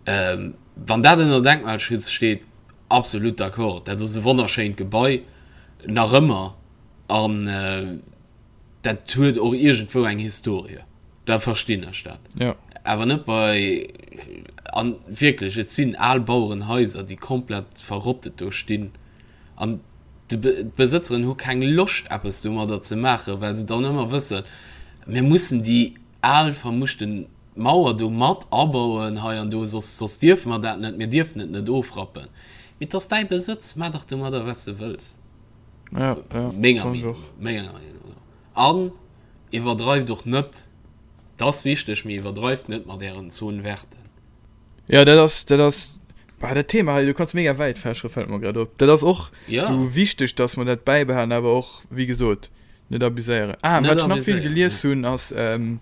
wann dat ënner Denkmalschutz steet, absolut d'accord, dat ass e wonnerschéint Gebai, nach ëmmer, an dat huet och iergendwou eng Historie, da verstinn ech dat. Ja. Awer net bei, an wierklech, et sinn al Bauerenhaiser, déi komplett verrottet do stinn, an d'Besëtzeren hu keng Loscht eppes domadder ze maachen, well se dann ëmmer wëssen, mir mussen déi al vermuschten Mauer do mat abauen hei an do, soss, soss dierfe mer dat net, mir dierfen et net ofrappen. Mee et ass däi Besëtz, maach dach domadder wat s de wëlls. Ja, ja, Menger Meenung no. Menger Meenung no. An iwwerdreift och net, dat ass wichteg, mee iwwerdreift net mat ären Zone verten. Ja, dat ass, dat ass, bah, dat Thema hei, du kanns mega wäit fächere, fält mer grad op. Dat ass och ja. sou wichteg, dass mer dat bäibehalen, awer och, wéi gesot, net abuséieren. Ah, net wat ech nach vill abuséieren, gelies ja. hunn, ass, ähm,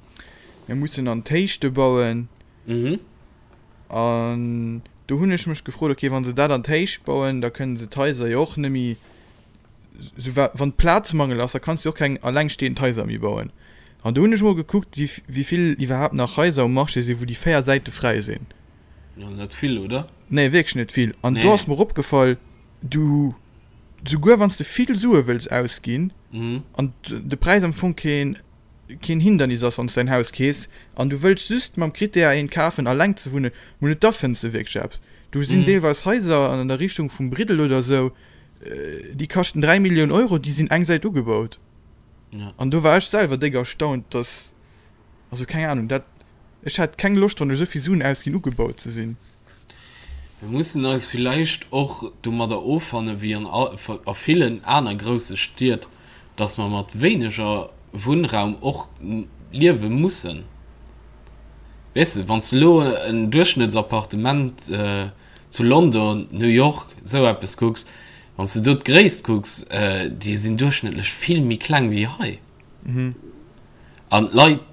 mir mussen an d'Héichte bauen. Mhm. An do hunn ech mech gefrot, okay, wa se dat an d'Héicht bauen, da kënnen se d'Haiser jo och net méi, sou wa wann Plazmangel ass, da kanns du jo och keng allengstehend Haiser méi bauen. An do hunn ech mol gekuckt, wéi wéi vill iwwerhaapt nach Haiser um Marché sinn, wou déi 4 Säite fräi sinn. Jo, net vill, oder? Nee, wierklech net vill. An do ass mer opgefall, du, souguer wann s de vill Sue wëlls ausginn an de Präis am Fong keen keen Hindernis ass, wann s de ein Haus kees an du wëlls just mam Krittär eent kafen alleng ze wunnen, mol net, da fënns de wierklech eppes. Do sinn deelweis Haiser an der Richtung vum Briddel oder esou, déi kaschten 3 Millioun Euro, déi sinn eng Säit ugebaut. An do war ech selwer déck erstaunt, dass, also keng Ahnung, dat, ech hätt keng Loscht, wann ech esou vill Suen ausginn, ugebaut ze sinn. Mir mussen eis villäicht och domadder offanne wéi an a villen aner grousse Stied, dass mer mat wéineger Wunnraum och liewe mussen. Weess de, wann s de elo en Duerchschnëttsappartement zu London, New York, esou eppes kucks, wann s de do d'Gréisst kucks, déi sinn duerchschnëttlech vill méi kleng wéi hei. An d'Leit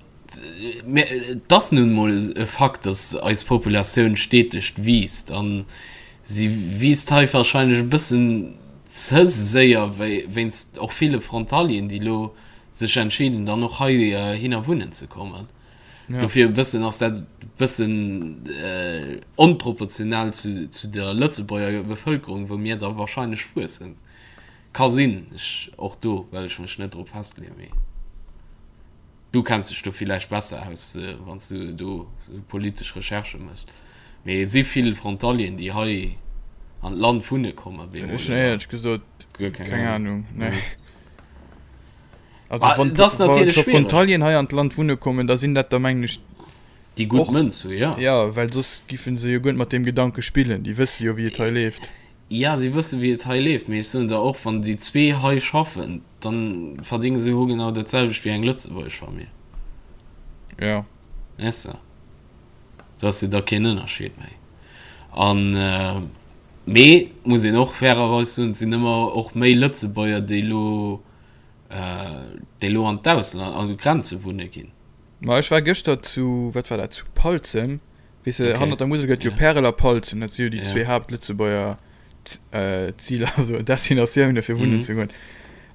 Mä et ass nun emol e Fakt, datt eis Populatioun steteg wiisst. A si wiisst hei wahrscheinlech e bëssen ze séier, wéinst och ville Frontalieren, déi elo sech entscheeden, dann och heihinner wunnen ze kommen. Dofir e bëssen ass dat e bëssen onproportional zu der Lëtzebuerger Bevëlkerung, wou mir da wahrscheinlech wuessen. Ka sinn, ech, och do well ech mech net drop festleeën, mee du kenns dech do villäicht besser aus, wann s du do sou politesch Recherchë méchs. Mee et si vill Frontalieren, déi hei an d'Land wunne kommen op eemol, Ech hunn éierlech gesot guer keng Ahnung, nee. Also Ah, wann et ass natierlech scho schwiereg. Frontalieren hei an d'Land wunne kommen, da sinn dat der mengen ech Déi gutt och, Mënz hu, jo. jo, well soss giffen se jo guer net mat deem Gedanke spillen. Déi wësse jo wéi et hei leeft. Jo, si wësse wéi et hei leeft, mee ech soen der och, wann déi zwee hei schaffen, da verdénge se hogenau dat selwecht wéi eng lëtzebuergesch Famill. Jo. Weess de, do ass jo da keen Ënnerscheed méi. An, mee muss een och fairerweis soen, et sinn ëmmer och méi Lëtzebuerger, déi elo, déi elo an d'Ausland, an d'Grenze wunne ginn. Ma ech war gëschter zu, wat war dat, zu Palzem, Weess de, Okay. hannert der Musel gëtt jo Ja. Pärel a Palzem, dat si jo déi Ja. zwee Haaptlëtzebuerger. Ziler, also Destinatioune fir wunnen ze goen.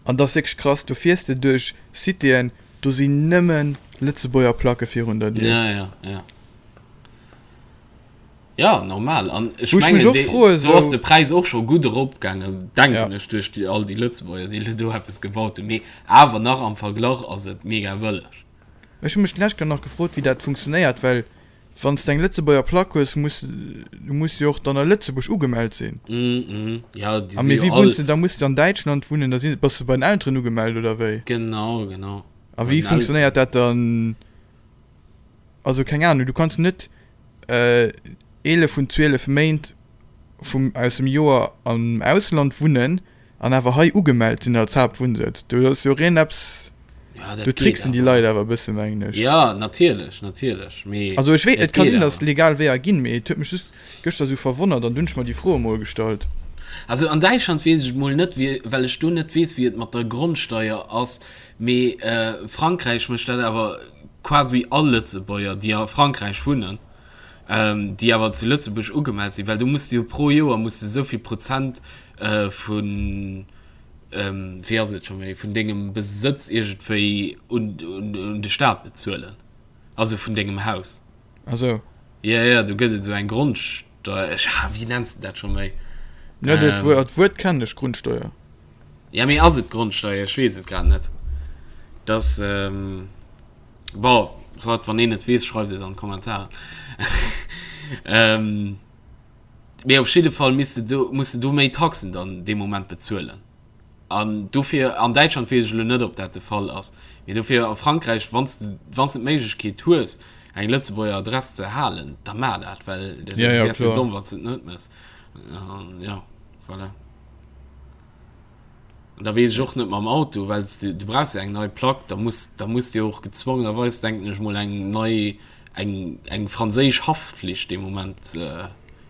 An dat ass wierklech krass, do fiers de duerch Citéen, do sinn nëmme Lëtzebuerger Placke virun der Dier. Ja, ja, ja. Ja, normal. An ech mengen, och froe, do ass de Präis och scho gutt eropgaangen, denken ech, duerch déi, all déi Lëtzebuerger, déi elo do eppes gebaut hunn. Mee awer nach am Verglach ass et mega bëlleg. Ech hu mech d'lescht Kéier nach gefrot, wéi dat funktionéiert, well wann s de eng Lëtzebuerger Plack hues, muss du muss jo och dann a Lëtzebuerg ugemellt sinn. Mm, ja, déi si jo all. Wéi wunns de da? Muss de an Däitschland wunnen? Da sinn, bass de bei den Elteren ugemellt oder wéi? Genau, genau. A wéi funktionéiert dat dann? Also keng Ahnung, du kanns net 11 vun 12 Méint vum aus dem Joer am Ausland wunnen an awer hei ugemellt sinn als Haaptwunnsëtz. Do ass jo reen eppes, Ja, dat do geet tricksen déi awer. Leit awer e bësse mengen ech. Ja, natierlech, natierlech, mee Also ech wee, et et ka geet sinn, datt awer. et legal Weeër ginn, mee et huet mech just gëschter esou verwonnert an dunn hunn ech mer déi Fro emol gestallt. Also an Däitschland weess ech et mol net, wéi, well ech do net weess, wéi et mat der Grondsteier ass, mee Frankräich mécht dat awer quasi all Lëtzebuerger, déi a Frankräich wunnen, déi awer zu Lëtzebuerg ugemellt sinn, well do muss de jo pro Joer muss de esou vill Prozent vun, wéi ass et scho méi, vun dengem Besëtz iergendwéi un de Staat bezuelen, also vun dengem Haus. Ah sou. Jo, jo, do gëtt et esou eng Grondsteuer, ech, wéi nenns de dat scho méi? Jo, dat Wuert kennen ech, Grundsteuer. Ja, mee ass et d'Grondsteier? Ech weess et grad net. Dass, bon, soit, wann een et weess, schreift et an d'Kommentaren. Mee op jidde Fall misst de do, muss de do méi Taxen dann dee Moment bezuelen. An dofir, an Däitschland weess ech elo net, ob dat de Fall ass, mee dofir a Frankräich, wann s de, wann s de d'Méiglechkeet hues, eng Lëtzebuerger Adress ze halen, da maach dat, well dat Ja, ja, wäers jo kloer. domm, wann s de et net méchs. An ja, voilà. An da weess ech och net mam Auto, well s du, du brauchs jo eng nei Plack, da muss, da muss de jo och gezwongenerweis, denken ech mol, eng nei, eng, eng franséisch Haftflicht dee Moment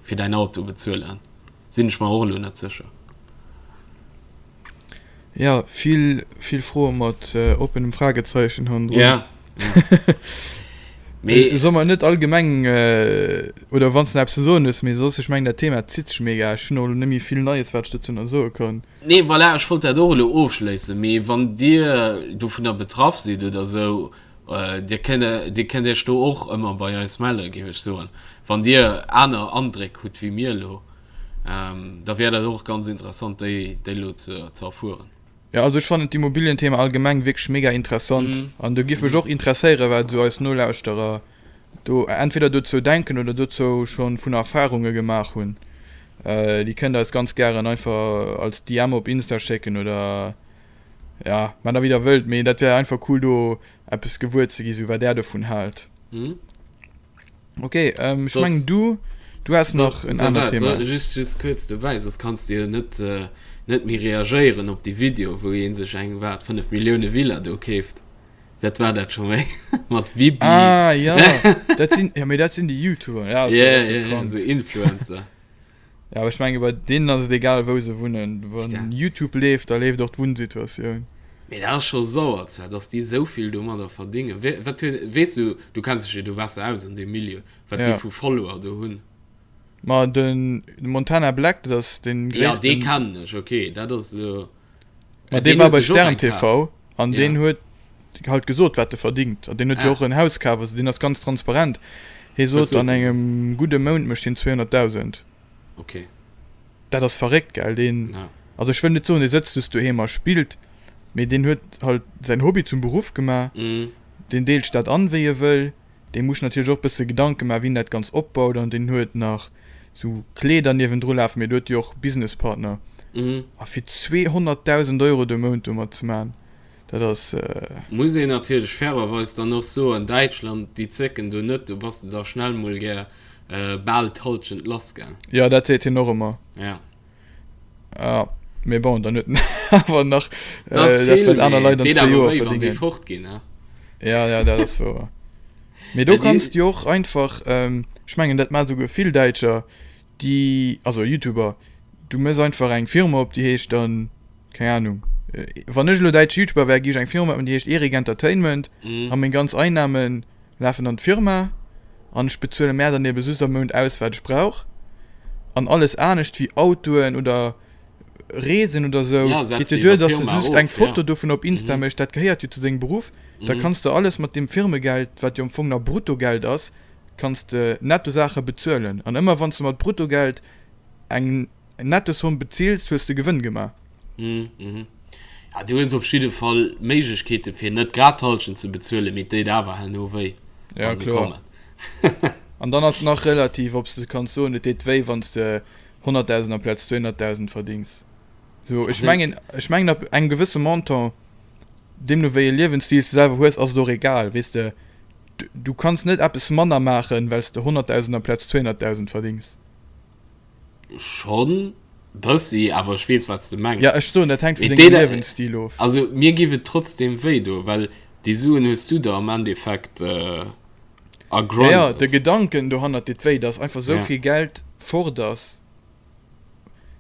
fir däin Auto bezuelen. Sinn ech mer och elo net sécher. Ja, vill, vill Froe mat oppenem Fragezeichen hannendrun. Ja, ja. Mee. Soll mer net allgemeng, oder wann s de nach eppes ze soen hues, mee soss, ech mengen dat Thema zitt sech mega, ech hunn och elo net méi vill Neies wat ech dozou nach soe kann. Nee, voilà, ech wollt dat och elo ofschléissen, mee wann Dir dovunner betraff sidd oder esou, Dir kënnt, Dir kënnt Iech do och ëmmer bei eis mellen, géif ech soen, wann Dir aner Andréck hutt wéi mir elo, da wär dat och ganz interessant déi, déi elo ze, ze erfueren. Jo, also ech fannen d'Immobilienthema allgemeng wierklech mega interessant an do giff mech och interesséieren, wat esou eis Nolauschterer do entweder dozou denken oder dozou schonn vun Erfahrunge gemaach hunn. Déi kënnt eis ganz gären einfach als DM op Insta schécken oder ja, maacht der wéi der wëllt, mee dat wär einfach cool do eppes gewuer ze gi sou wat där dovun haalt. Ok, ähm, ech mengen du, du has nach en anert Thema. Just, just kuerz dobäi, soss kanns de jo net, net méi reagéieren op déi Video, wou ee sech eng, wat, 5 Millioune Villa do keeft. Wat war dat scho méi? Mat Bibi. Ah, ja, dat sinn, ja, mee dat sinn déi YouTuber, ja, ja, ja, ja, sou Influencer. Ja, awer ech menge bei deenen ass et egal wou se wunnen. Wann YouTube leeft, da leeft och d'Wunnsituatioun. Mee dat ass scho sauer zwar, dass déi esou vill domadder verdéngen. Wat huet, weess du, du kenns dech jo do besser aus an deem Milieu, wat déi vu Follower do hunn? Ma den Montana Black, dat ass dee gréissten. Ja, dee kennen ech, ok, dat ass elo. Ma dee war bei Stern TV an deen huet halt gesot, wat e verdingt. An deen huet jo och en Haus kaf, also deen ass ganz transparent. Hie sot, an engem gudde Mount mécht hien 200.000. Ok. Dat ass verréckt, gell? Deen, also ech wëll net soen, dee sëtzt just doheem a spillt, mee deen huet halt säin Hobby zum Beruff gemaach. Deen deelt sech dat an, wéi e wëll. Dee muss natierlech och bësse Gedanke maachen, wéi en dat Ganzt opbaut an deen huet nach sou Kleeder niewendru lafen, mee do huet jo och Businesspartner. A fir 200.000 Euro de Mount domat ze maachen, dat ass. Muss een natierlech fairerweis dann och soen, Däitschland, déi zécken do net, do bass de da schnell mol gär bal d'Hallschent lass, gell? Jo, dat seet hien och ëmmer. Ja. Ja, mee bon, dann huet en awer nach Dat ass vill, dat wat aner Leit an zwee Joer verdingen. Deet awer wéi, wann déi fort ginn, ne? Ja, ja, dat ass wouer. Mee do kanns du jo och einfach, ech mengen dat maachen esouguer vill Däitscher, déi, also Youtuber, du méchs einfach eng Firma op, déi heescht dann, keng Ahnung, wann ech elo däitsche Youtuber wär, géif ech eng Firma opmachen, déi heescht Erik Entertainment a meng ganz Einnahmen lafen an d'Firma an ech bezuele mär dann ebe just am Mount aus, wat ech brauch. An alles anescht wéi Autoen oder Reesen oder sou geet jo duer, dass de just eng Foto dovun op Insta méchs, dat gehéiert jo zu dengem Beruff. Da kanns de alles mat deem Firmegeld, wat jo am Fong nach Bruttogeld ass, kanns de Nettosaache bezuelen. An ëmmer wann s de mat Bruttogeld eng Nettosomm bezills, hues de Gewënn gemaach. Ja, du hues op jidde Fall Méiglechkeeten, fir net grad d'Hallschent ze bezuelen, mee et déit awer herno wéi, wa se kommen. An dann ass nach relativ, ob s de kanns soen, et deet wéi, wann s de 100.000 amplaz 200.000 verdings. So, ech mengen, ech mengen ab engem gewësse Montant, deemno wéi e Liewensstil s de selwer hues, ass et och egal, weess de. Du kanns net eppes manner maachen, well s de 100.000 amplaz 200.000 verdings. Schonn bëssi, awer ech weess, wat s de mengs. Ja, ech soen, dat hänkt vun dengem Liewensstil of. Also mir giff et trotzdem wéi doen, well déi Suen hues du der am Endeffekt ergrindet. Ja, ja, de Gedanken dohannert deet wéi, dass einfach sou vill Geld fort ass.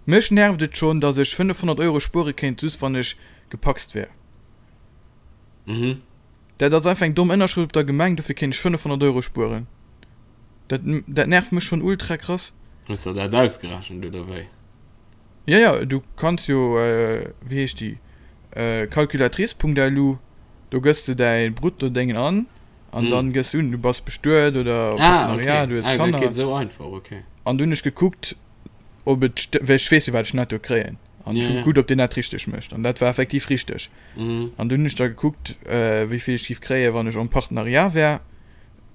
Mech nervt et schonn, dass ech 500 Euro spuere kéint, just wann ech gepacst wär. Mhm. Dat ass einfach eng domm Ënnerschrëft op der Gemeng, dofir kéint ech 500 Euro spueren. Dat, dat nervt mech schonn ultra krass. Hues der dat ausgerechent oder wéi? Ja, ja, du kanns jo, wéi heescht déi, Calculatrice.lu, do gëss de däi Brutto-Déngen an, an dann gëss un, du bass bestuet oder Partenariat, du hues Kanner. Ah, okay. Ah, dat geet esou einfach, okay. An du hunn ech gekuckt, ob et stëmmt, well ech weess jo, wat ech netto kréien. An ech hu gekuckt, ob deen dat richteg mécht. An dat war effektiv richteg. An dunn hunn ech da gekuckt, wéi vill ech géif kréien, wann ech en Partenariat wär.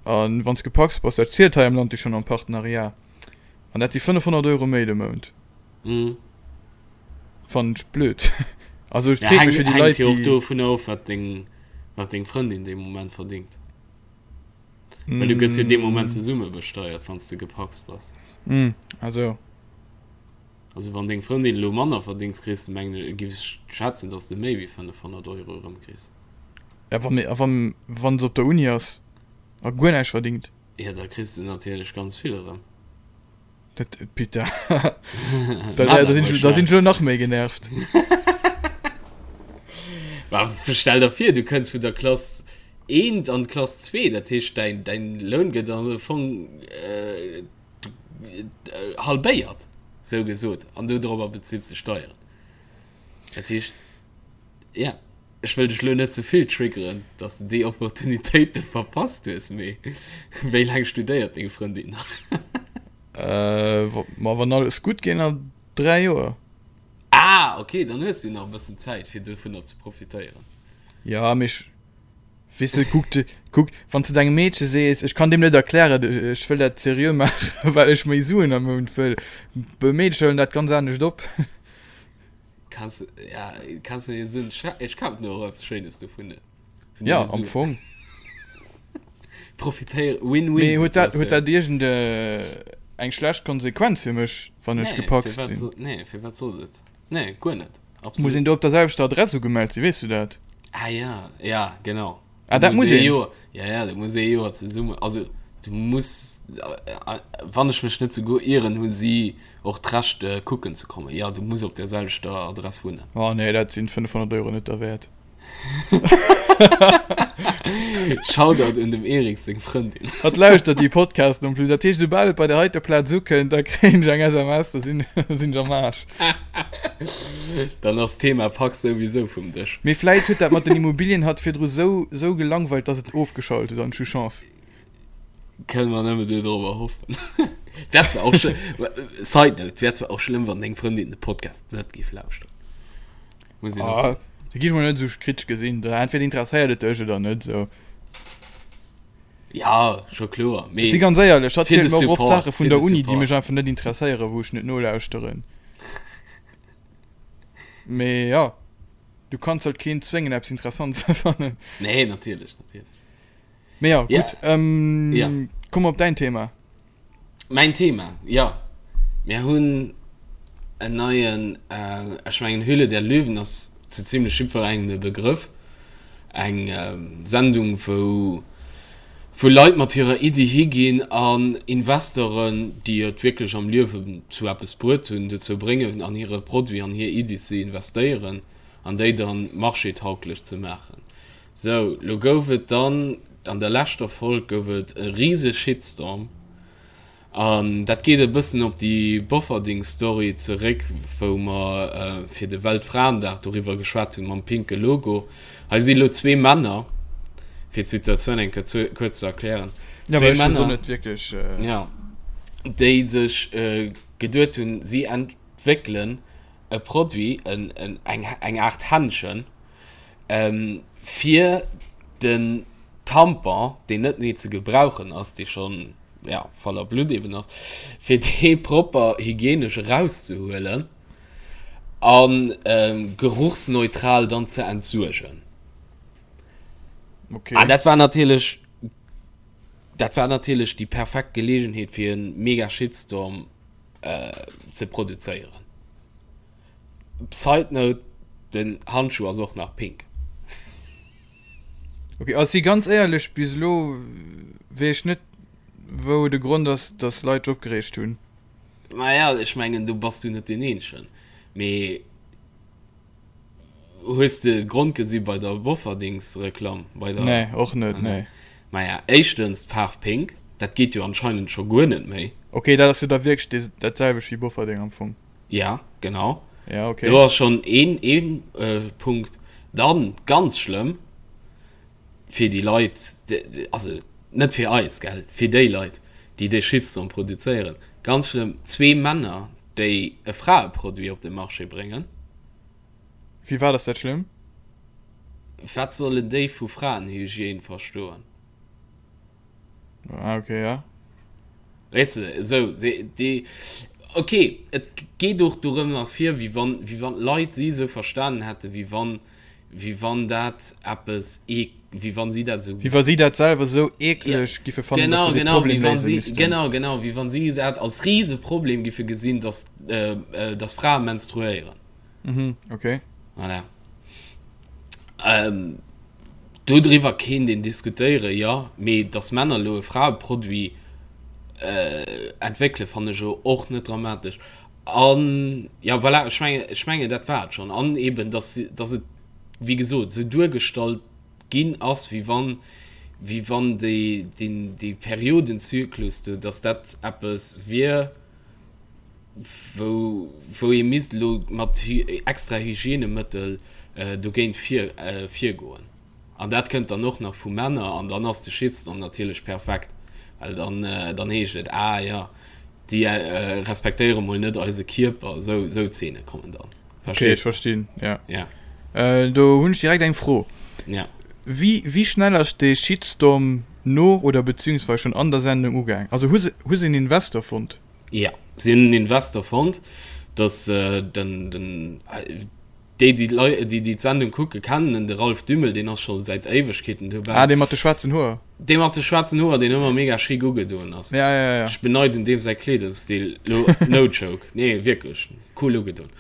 An wann s gepacst bass, dat zielt hei am Land jo schonn en Partenariat. An dat si 500 Euro méi de Mount. Mm. Fannen ech blöd. Also et freet mech fir déi Leit, déi. Hänkt jo och dovunner of, wat deng, wat deng Frëndin dee Moment verdingt. Well du gëss jo dee Moment zesumme besteiert, wann s de gepacst bass. Mm, also. Also wann deng Frëndin elo manner verdingt, kriss de, mengen ech, giff ech schätzen, dass de méi wéi 500 Euro erëmkriss. Ja, wa, a wann, wann se op der Uni ass a guer näischt verdingt? Ja, da kriss de natierlech ganz vill erëm. Dat, Peter, da, da, da sinn ech, da sinn ech elo nach méi genervt. Ma stell der vir, du kënns vun der Klass eent an d'Klass zwee, dat heescht däin, däin Loun gëtt am Fong äh, halbéiert, sou gesot, an dodrobber bezills de Steieren. Dat heescht, ja. Ech wëll dech lo net ze vill triggeren, dass de déi Opportunitéit do verpasst hues, mee wéi laang studéiert deng Frëndin nach? Ma wann alles gutt geet, nach 3 Joer. Ah, ok, dann hues du nach e bëssen Zäit, fir dovunner ze profitéieren. Ja, mee ech, weess de, kuck, kuck, wann s de dengem Meedche sees, ech kann deem net erklären, ech wëll dat seriö maachen, well ech méi Suen am Mount wëll, Meedercher huelen dat ganz anescht op. Kannst, ja, kannst du dir sinn, ech kafen mir och eppes Schéines dovun. Ja, am Fong. Profitéier, Win-win. Mee huet dat, huet dat iergend eng schlecht Konsequenz fir mech, wann ech gepacst sinn? Nee, fir wat soll et? Nee, guer net. Absolut. Muss een do op der selwechter Adress ugemellt sinn, weess du dat? Ah ja, ja, genau. Ah, dat muss een? Joer, ja, ja, du muss ee Joer zesummen, also du muss, wann ech mech net souguer ieren, hu si och d'Recht kucken ze kommen. Ja, du muss op der selwechter Adress wunnen. Oh nee, dat sinn 500 Euro net derwäert. Shoutout un dem Eric seng Frëndin. Hatt lauschtert déi Podcasten en plus, dat heescht soubal et bei der heiter Plaz ukënnt, da kréien ech eng SMS, da sinn sinn ech am Aarsch. Dann ass d'Thema Pak souwisou vum Dësch. Mee vläit huet dat mat den Immobilien hatt virdru sou sou gelangweilt, dass et ofgeschalt huet an ech hu Chance. Kënne mer nëmme dodrobber hoffen. Wär zwar och schlëmm, Side note, wär zwar och schlëmm, wann deng Frëndin de Podcast net géif lauschteren. Muss een och soen. Da gi ech mol net esou kritesch gesinn. Da entweder interesséiert et dech oder net esou. Ja, scho kloer. Mee Si ganz éierlech, hatt zielt mer och oft Saache vun der Uni, déi mech einfach net interesséieren, wou ech net nolauschteren. Mee ja, du kanns halt keen zwéngen, eppes interessant ze fannen. Nee, natierlech, natierlech. Mee ja, gutt. Ja. Komm op däin Thema. Mäin Thema, jo. Mir hunn en neien, ech mengen Höhle der Löwen ass zu zimlech jiddwerengem e Begrëff, eng Sendung wou wou Leit mat hirer Iddi higinn an Investoren, déi et wierklech am Liewen zu eppes bruet hunn, dozou bréngen an hire Produit, an hir Iddi ze investéieren an déi dann marchétauglech ze maachen. Sou, lo gouf et dann, an der leschter Folg gouf et e rise Shitstorm. An dat geet e bëssen op déi Bofferding-Story zeréck, wou mer fir de Weltfraendag doriwwer geschwat hunn, mam pinke Logo. Hei si lo zwee Männer, fir d'Situatioun eng Kéier kuerz ze erklären, zwee Männer, jo, déi sech geduet hunn, si entwéckelen e Produit, eng Aart Händschen, fir den Tampon, deen net méi ze gebrauchen ass, dee schonn, ja, voller Blutt eben ass, fir dee propper hygienesch erauszehuelen a geruchsneutral dann ze entsuergen. Okay. An dat war natierlech, dat war natierlech déi perfekt Geleegenheet fir e mega Shitstorm ze produzéieren. Side note, den Handschuh ass och nach pink. Ok, also si ganz éierlech, bis elo weess ech net wou de Grond ass, dass Leit sech opgereegt hunn. Maja, ech mengen do bass du net deen eenzegen. Mee hues de Grond gesi bei der Bofferdings-Reklamm? Bei der. Nee, och net, nee. Maja, éischtens d'Faarf pink, dat geet jo anscheinend scho guer net méi. Ok, dat ass jo da wierklech dat selwecht wéi Bofferding am Fong. Ja, genau. Ja, okay. Do ass schon een, een äh, Punkt. Dann, ganz schlëmm, fir déi Leit, also net fir eis, gell, fir déi Leit, déi dee Shitstorm produzéieren, ganz schlëmm, zwee Männer, déi e Fraeproduit op de Marché bréngen. Firwat ass dat schlëmm? Wat sollen déi vu Fraenhygiène verstoen? Ah, okay, ja. Weess de, esou, déi, ok, et geet och dorëmmer vir, wéi wann, wéi wann d'Leit si esou verstanen hätten, wéi wann, wéi wann dat eppes ee, wéi wann si dat esou. Wéi wa si dat selwer esou eekleg giffe fannen, dass se dee Problem léise missten. Genau, genau, wéi wann si dat als Riseproblem giffe gesinn, dass, dass Frae menstruéieren. Mhm, okay. Voilà. Ähm, dodriwwer kéint een diskutéieren, jo, mee dass Männer elo e Fraeproduit äh, entwéckelen, fannen ech elo och net dramatesch. An, ja, voilà, ech mengen, ech mengen, dat war et schonn. An eben, dass, dass et, wéi gesot, esou duergestallt ginn ass, wéi wann, wéi wann déi, deen, dee Periodenzyklus do, dass dat eppes wier, wou, wou ee misst elo mat extra Hygienemëttel dogéint vir, virgoen. An dat kënnt dann och nach vu Männer an dann ass de Shitstorm natierlech perfekt, well dann, dann heescht et, ah jo, déi respektéiere mol net eise Kierper. Esou, esou Zeene kommen dann. Okay, ech verstinn, ja. Ja. Do hunn ech direkt eng Fro. Ja. Wéi, wéi schnell ass dee Shitstorm no oder beziehungsweise schonn an der Sendung ugaang? Also hu se, hu se en Investor fonnt? Jo, si hunn en Investor fonnt, dass den, den, déi, déi d'Lei, déi, déi d'Sendung kucken, kennen en, de Ralph Dümmel, deen ass scho säit Éiwegkeeten dobäi. Ah, dee mat de schwaarzen Hoer. Dee mat de schwaarzen Hoer, deen ëmmer mega chic ugedoen ass. Ja, ja, ja. Ech beneiden deem säi Kleederstil, lo, no joke, nee, wierklech, cool ugedoen.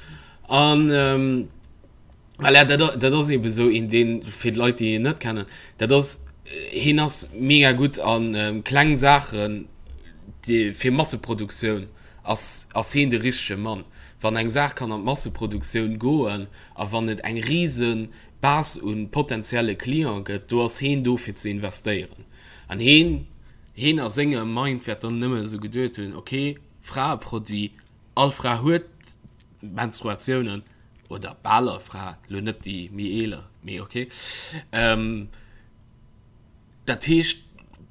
An, Voilà, dat, dat ass eben esou een, deen, fir d'Leit, déi en net kennen, dat ass, hien ass mega gutt a kleng Saachen, déi, fir Masseproduktioun ass, ass hien de richtege Mann. Wann eng Saach kann an d'Masseproduktioun goen a wann et eng rise Base u potenzielle Cliente gëtt, do ass hien do fir ze investéieren. An hien, hien a sengem Mind wäert dann nëmmen esou geduet hunn, ok, Fraeproduit, all Fra huet Menstruatiounen, oder bal all Fra, lo net déi méi eeler, mee ok. Dat heescht,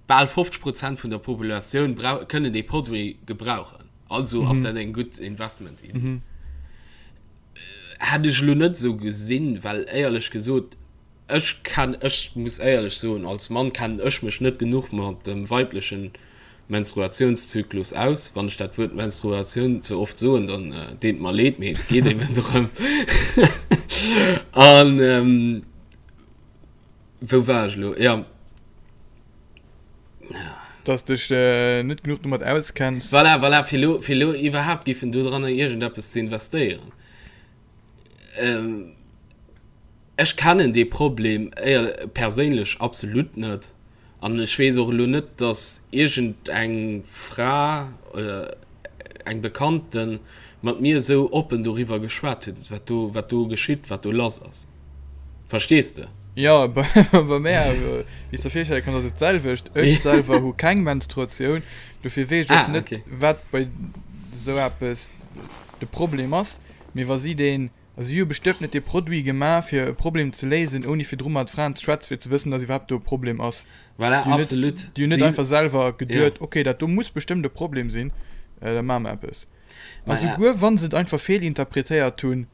bal 50 Prozent vun der Populatioun kënnen dee Produit gebrauchen. Also ass dat eng gutt Investment-Iddi. Hätt ech elo net esou gesinn, well éierlech gesot, Ech kenn, ech muss éierlech soen, als Mann kennen ech mech net genuch mat dem weiblechen Menstruatiounszyklus aus. Wann ech dat Wuert Menstruatioun ze oft soen, dann deet mer leed, mee et geet eben dorëm. An wou war ech elo? Jo. Dass dech net genuch domat auskenns. Voilà, voilà, fir elo, fir elo iwwerhaapt giffen dodranner iergendeppes ze investéieren. Ech kennen dee Problem perséinlech absolut net an ech weess och elo net, datt iergend eng Fra oder eng Bekannte mat mir esou oppen doriwwer geschwat huet, wat do, wat do geschitt, wat do lass ass. Verstees de? Jo, bei mär, wéi s de virstelle kanns, ass et d'selwecht. Ech selwer hu keng Menstruatioun, dofir weess ech och net, wat bei esou eppes de Problem ass. Mee wa si deen, also si hu bestëmmt net dee Produit gemaach, fir e Problem ze léisen, ouni virdru mat Fraen ze schwätzen, fir ze wëssen, datt iwwerhaapt do e Problem ass. Voilà, absolut. Déi hunn net einfach selwer geduet, ok, dat do muss bestëmmt e Problem sinn, da maache mer eppes. A souguer wa se et einfach feelinterpretéiert hunn,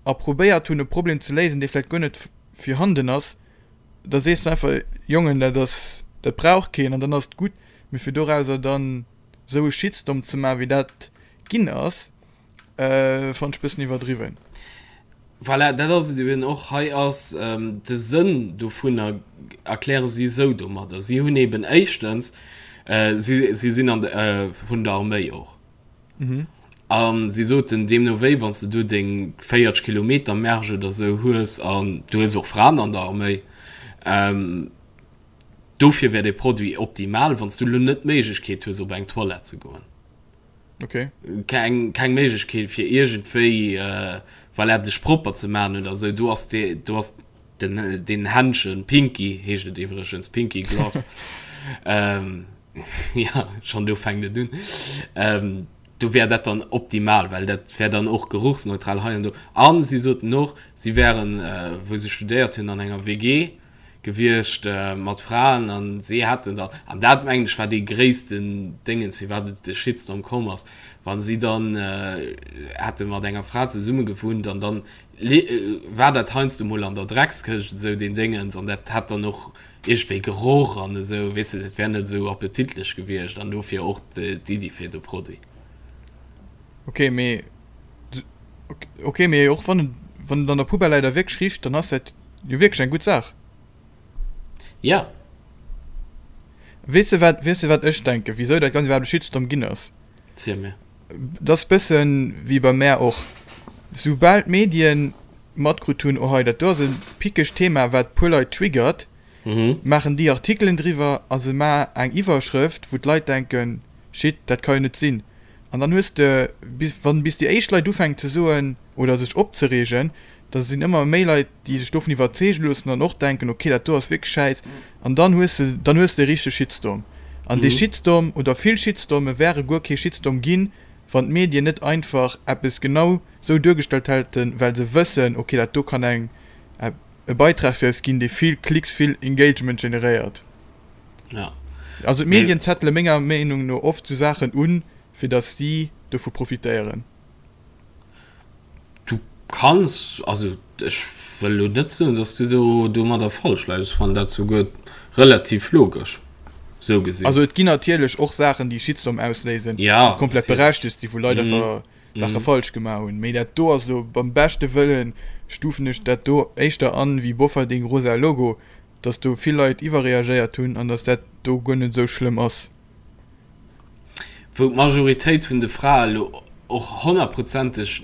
a probéiert hunn e Problem ze léisen, dee vläicht guer net virhanden ass, da sees de einfach, Jongen, dat ass, dat brauch keen an dann ass et gutt. Mee fir dorauser dann esou e Shitstorm ze maachen, wéi dat ginn ass, fannen ech e bëssen iwwerdriwwen. Voilà, dat ass et eben och. Hei ass de Sënn dovunner, erkläre si esou domadder, si hunn eben éischtens, si sinn an de, vun der Arméi och, A si soten, deemno wéi, wann s de do deng 40 Kilometer Märsch oder esou hues, an du hues och Fraen an der Arméi, dofir wär dee Produit optimal, wann s du elo net d'Méiglechkeet hues, op eng Toilette ze goen. Okay. Keng, keng Méiglechkeet, fir iergendwéi, voilà, dech propper ze maachen oder esou, do ass dee, do ass den, deen Händschen, Pinky heescht et iwwregens, Pinky Gloves, Ja, schon do fänkt et un. Ähm, do wär dat dann optimal, well dat wär dann och geruchsneutral hei an do. An si soten och, si wären, äh, wou se studéiert hunn, an enger WG gewiescht äh, mat Fraen an si hätten dann, an dat mengen ech war dee gréissten Déngens, firwat et de Shitstorm komm ass, wann si dann äh, hätte mat enger Fra zesumme gewunnt an dann war dat heiansdo mol an der Dreckskëscht esou deen Déngens an dat hätt dann och iergendwéi Geroch an esou, weess de, dat wär net esou appetitlech gewiescht an dofir och d'Iddi fir de Produit. Ok, mee ok, mee och wann et wann et an der Poubelle läit a wierklech richt, dann ass dat jo wierklech eng gutt Saach. Ja. Weess de wat, weess de wat ech denken, wisou dat Ganzt iwwerhaapt e Shitstorm ginn ass? Ziel mir. Dat ass bëssen wéi bei mär och, soubal d'Medien matkrut hunn, oh hei dat do ass e pickegt Thema wat puer Leit triggert, maachen déi Artikelen driwwer a se maachen eng Iwwerschrëft wou d'Leit denken, shit dat ka jo net sinn. An dann hues de, bis wann bis déi éischt Leit ufänken ze soen oder sech opzereegen, da sinn ëmmer méi Leit déi sech dovun iwwerzeege loossen an och denken, ok dat do ass wierklech schäiss an dann hues de dann hues de e richtege Shitstorm. An dee Shitstorm oder vill Shitstorme wäre guer kee Shitstorm ginn, wann d'Medien net einfach eppes genau sou duergestallt hätten, well se wëssen, ok dat do kann eng e Beitrag fir eis ginn, dee vill Klicks, vill Engagement generéiert. Ja. Also d'Medien zettele menger Meenung no oft sou Saachen un, fir datt si dovu profitéieren. Du kanns, also ech wëll elo net soen, datt s du do domadder falsch läis. Ech fannen dat souguer relativ logesch, sou gesinn. Also et ginn natierlech och Saachen, déi Shitstorm ausléisen, déi komplett berechtegt sinn, wou Leit einfach Saache falsch gemaach hunn. Mee dat do ass elo, beim beschte Wëllen stufen ech dat do éischter an wéi Bofferding rosa Logo, datt do vill Leit iwwerreagéiert hunn an datt dat do guer net esou schlëmm ass. Wou d'Majoritéit vun de Frae elo och honnertprozenteg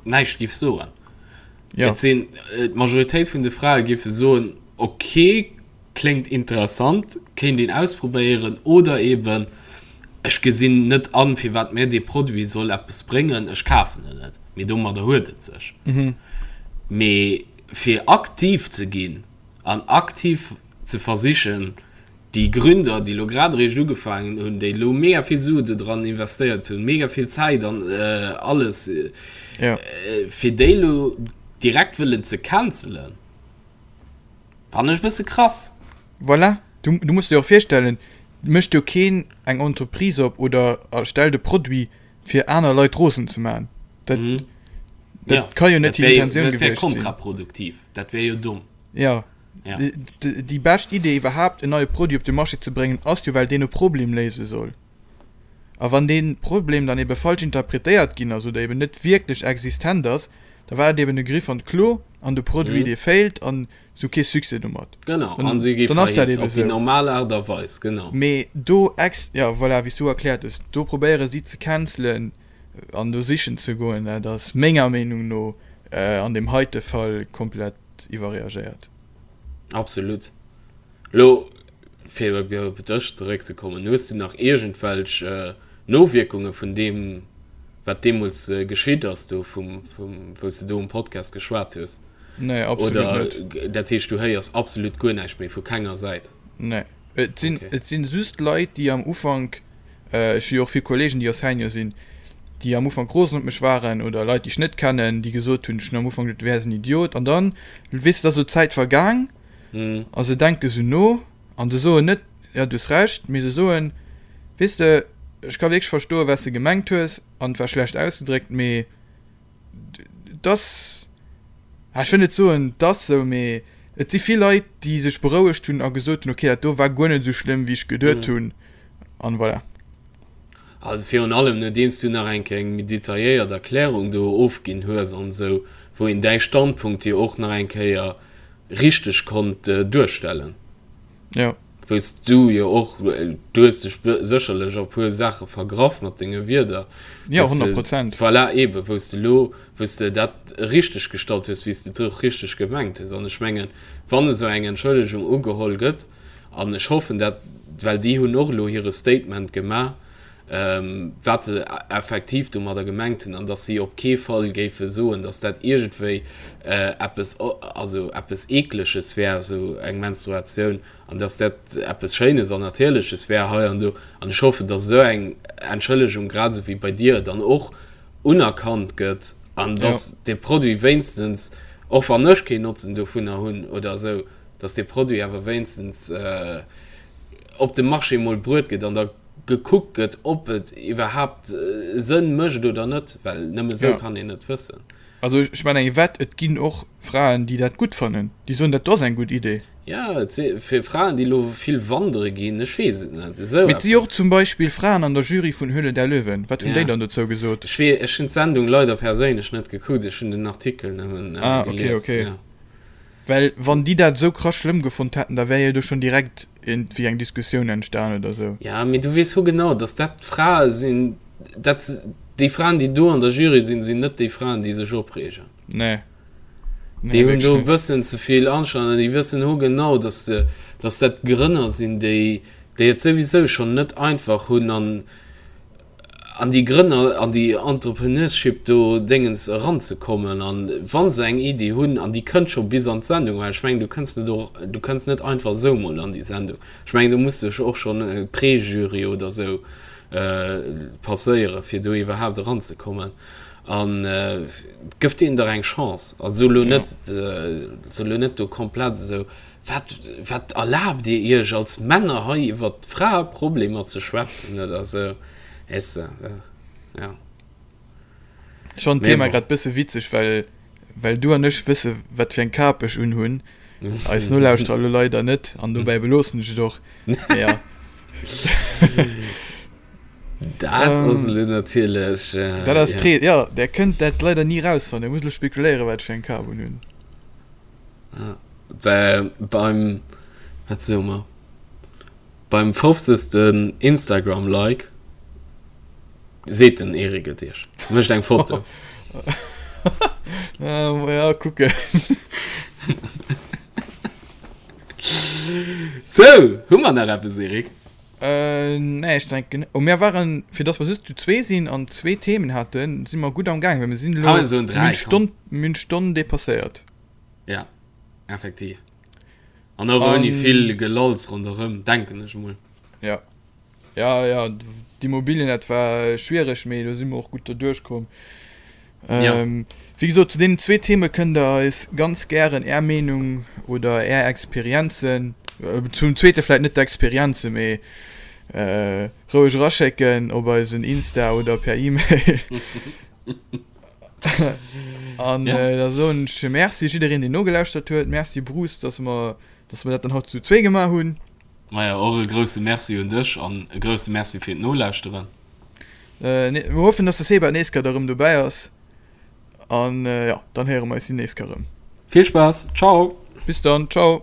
näischt giff soen. Ja. Et sinn, d'Majoritéit vun de Frae giffe soen, ok, kléngt interessant, kéint een ausprobéieren, oder eben, ech gesinn net an, firwat mir dee Produit soll eppes bréngen, ech kafen en net. Mee domadder huet et sech. Mee fir aktiv ze ginn an aktiv ze versichen, déi Gründer, déi elo grad eréischt ugefaangen hunn, déi elo mega vill Sue do dran investéiert hunn, mega vill Zäit an alles, fir déi elo direkt wëllen ze cancelen, fannen ech e bësse krass. Voilà, du, du muss dir och virstellen, et mécht jo keen eng Entreprise op oder erstellt e Produit, fir aner Leit rosen ze maachen. Dat, dat Ja, ka jo net dat hir wär jo, Intentioun dat wär gewiescht sinn. kontraproduktiv, dat wär jo domm. Ja. Ja. Déi bescht Idee iwwerhaapt en neie Produit op de Marché ze bréngen ass jo well deen e Problem léise soll. A wann dee Problem dann ebe falsch interpretéiert ginn ass oder eben net wierklech existent ass, da war dat eben e Griff an d'Klo an de Produit dee failt an se hu kee Succès domat. Genau, an se gi Dann ass dat faillite ebe op déi sou. normal Aart a Weis, genau. Mee do ex, jo voilà, wéi s du erkläert hues, do probéiere si ze cancelen an do sichen ze goen, dat ass menger Meenung no an deem heite Fall komplett iwwerreagéiert. Absolut. Lo, fir op dech zeréckzekommen, hues du nach iergendwelch Nowierkunge vun deem, wat deemools geschitt ass, do vum, vum, wou s de do um Podcast geschwat hues? Nee, absolut Oder net. Dat heescht, du héiers absolut guer näischt méi vu kenger Säit? Nee. Et sinn, okay. Et sinn just Leit, déi am Ufank, äh, ech hu jo och vill Kollegen, déi Enseignant sinn, déi am Ufank rosen op mech waren oder Leit, déi ech net kennen, déi gesot hunn, ech hunn am Ufank geduet, du wäers en Idiot. An dann, weess de, da ass esou d'Zäit vergaang mm. a se denke sou no an se soen net, ja, du hues Recht, mee se soen, weess de, ech ka wierklech verstoen, wat s de gemengt hues an et war schlecht ausgedréckt, mee dass, ech wëll net soen, dass sou, mee et si vill Leit, déi sech berouegt hunn a gesot hunn, okay, dat do war guer net esou schlëmm, wéi ech geduet hunn, an voilà. Also virun allem nodeems du nach eng Kéier eng méi detailléiert Erklärung do ofginn hues an esou, wou een däi Standpunkt jo och nach eng Kéier richteg konnt duerstellen. Jo. Wou s du jo och, du hues dech sécherlech a puer Saache vergraff mat denge Wierder. Jo, 100 Prozent. Voilà, eebe wou s de elo, wou s de dat richteg gestallt hues, wéi s de et och richteg gemengt hues. An ech mengen, wann esou eng Entschëllegung ugeholl gëtt, an ech hoffen dat, well déi hunn och elo hire Statement gemaach, wat se effektiv domadder gemengt hunn an dass si op kee Fall géife soen, dass dat iergendwéi eppes, also eppes Eekleges wär, esou eng Menstruatioun, an dass dat eppes Schéines an Natierleches wär hei an do. An ech hoffen, dass esou eng Entschëllegung, grad esou wéi bei dir, dann och unerkannt gëtt an dass dee Produit wéinstens, och wann ech keen Notzen dovunner hunn oder esou, dass dee Produit awer wéinstens op de Marché emol bruet gëtt an da gekuckt gëtt, ob et iwwerhaapt Sënn mécht oder net, well nëmme esou kann een et wëssen. Also ech man eng Wett, et ginn och Fraen, déi dat gutt fannen, déi soen, dat do ass eng gutt Idee. Jo, et si fir Fraen, déi elo vill wandere ginn, ech weess et net, esou Mee et si och zum Beispill Fraen an der Jury vun Höhle der Löwen. Wat hunn déi dann dozou gesot? Ech wee, ech hunn d'Sendung leider perséinlech net gekuckt, ech hunn den Artikel nëmmen gelies. Ah, okay, okay. Well wann déi dat esou krass schlëmm gefonnt hätten, da wär jo do schonn direkt iergendwéi eng Diskussioun entstan oder esou. Ja, mee du weess ho genau, dass dat Frae sinn, dat déi Fraen, déi do an der Jury sinn, sinn net déi Fraen, déi sech opreegen. Nee. Nee, déi hunn do e bëssen ze vill Anstand an déi wëssen ho genau, dass de, dass dat Grënner sinn, déi, déi et souwisou schonn net einfach hunn an, an déi Grënner, an déi Entrepreneurship do Déngens eranzekommen an wa se eng Iddi hunn an déi kënnt scho bis an d'Sendung, well ech mengen du kënns net och, du kënns net einfach esou mol an déi Sendung, ech mengen do muss dech och schonn e Préjury oder esou passéiere fir do iwwerhaapt eranzekommen an gëff deenen dach eng Chance a so lo net, so lo net do komplett esou Wat, wat erlaabt Dir Iech als Männer hei iwwer Fraeproblemer ze schwätzen oder sou, weess de, ja. Ech fannen d'Thema grad bësse witzeg, well, well du an ech wësse wat fir eng Kap ech unhunn, eis Nolauschterer elo leider net, an dobäi beloossen ech et och, mee ja. Dat ass elo natierlech, Dat ass ja. Jo, där kënnt dat leider ni rausfannen, Dir musst elo spekuléieren, wat ech fir eng Kap unhunn. Well beim, wat soe mer, beim fofzegsten Instagram-Like seet den Eric et iech, mécht eng Foto. Ja, kucken. Sou, hu mer nach eppes, Eric? Nee, ech denken, oh, mir waren, fir dass mer just zu zwee sinn an zwee Themen haten, si mer gutt am Gaang, well mir sinn elo, Kann een soen, mir hunn d'Stonn, mir hunn d'Stonn depasséiert. Ja, effektiv. An och ouni vill Gelalls ronderëm, denken ech emol. Ja. Ja, ja, d'Immobilien, dat war schwiereg, mee do si mer och gutt derduerch komm. Ja. Wéi gesot, zu deenen zwee Theme kënnt der eis ganz gären är Meenung oder är Experienzen, zum zweete vläit net d'Experienzen, mee roueg eraschécken op eisen Insta oder per E-Mail. An ja. da soen ech Merci jiddereen, deen nogelauschtert huet. Merci Bruce, dass mer, dass mer dat dann haut zu zwee gemaach hunn. Maja, och e grousse Merci un dech an e grousse Merci fir d'Nolauschteren. Äh, mir hoffen, dass de Seba d'nächst Kéier da rëm dobäi ass. An äh, ja, dann héiere mer eis déi nächst Kéier rëm. Vill Spaass, ciao! Bis dann, ciao!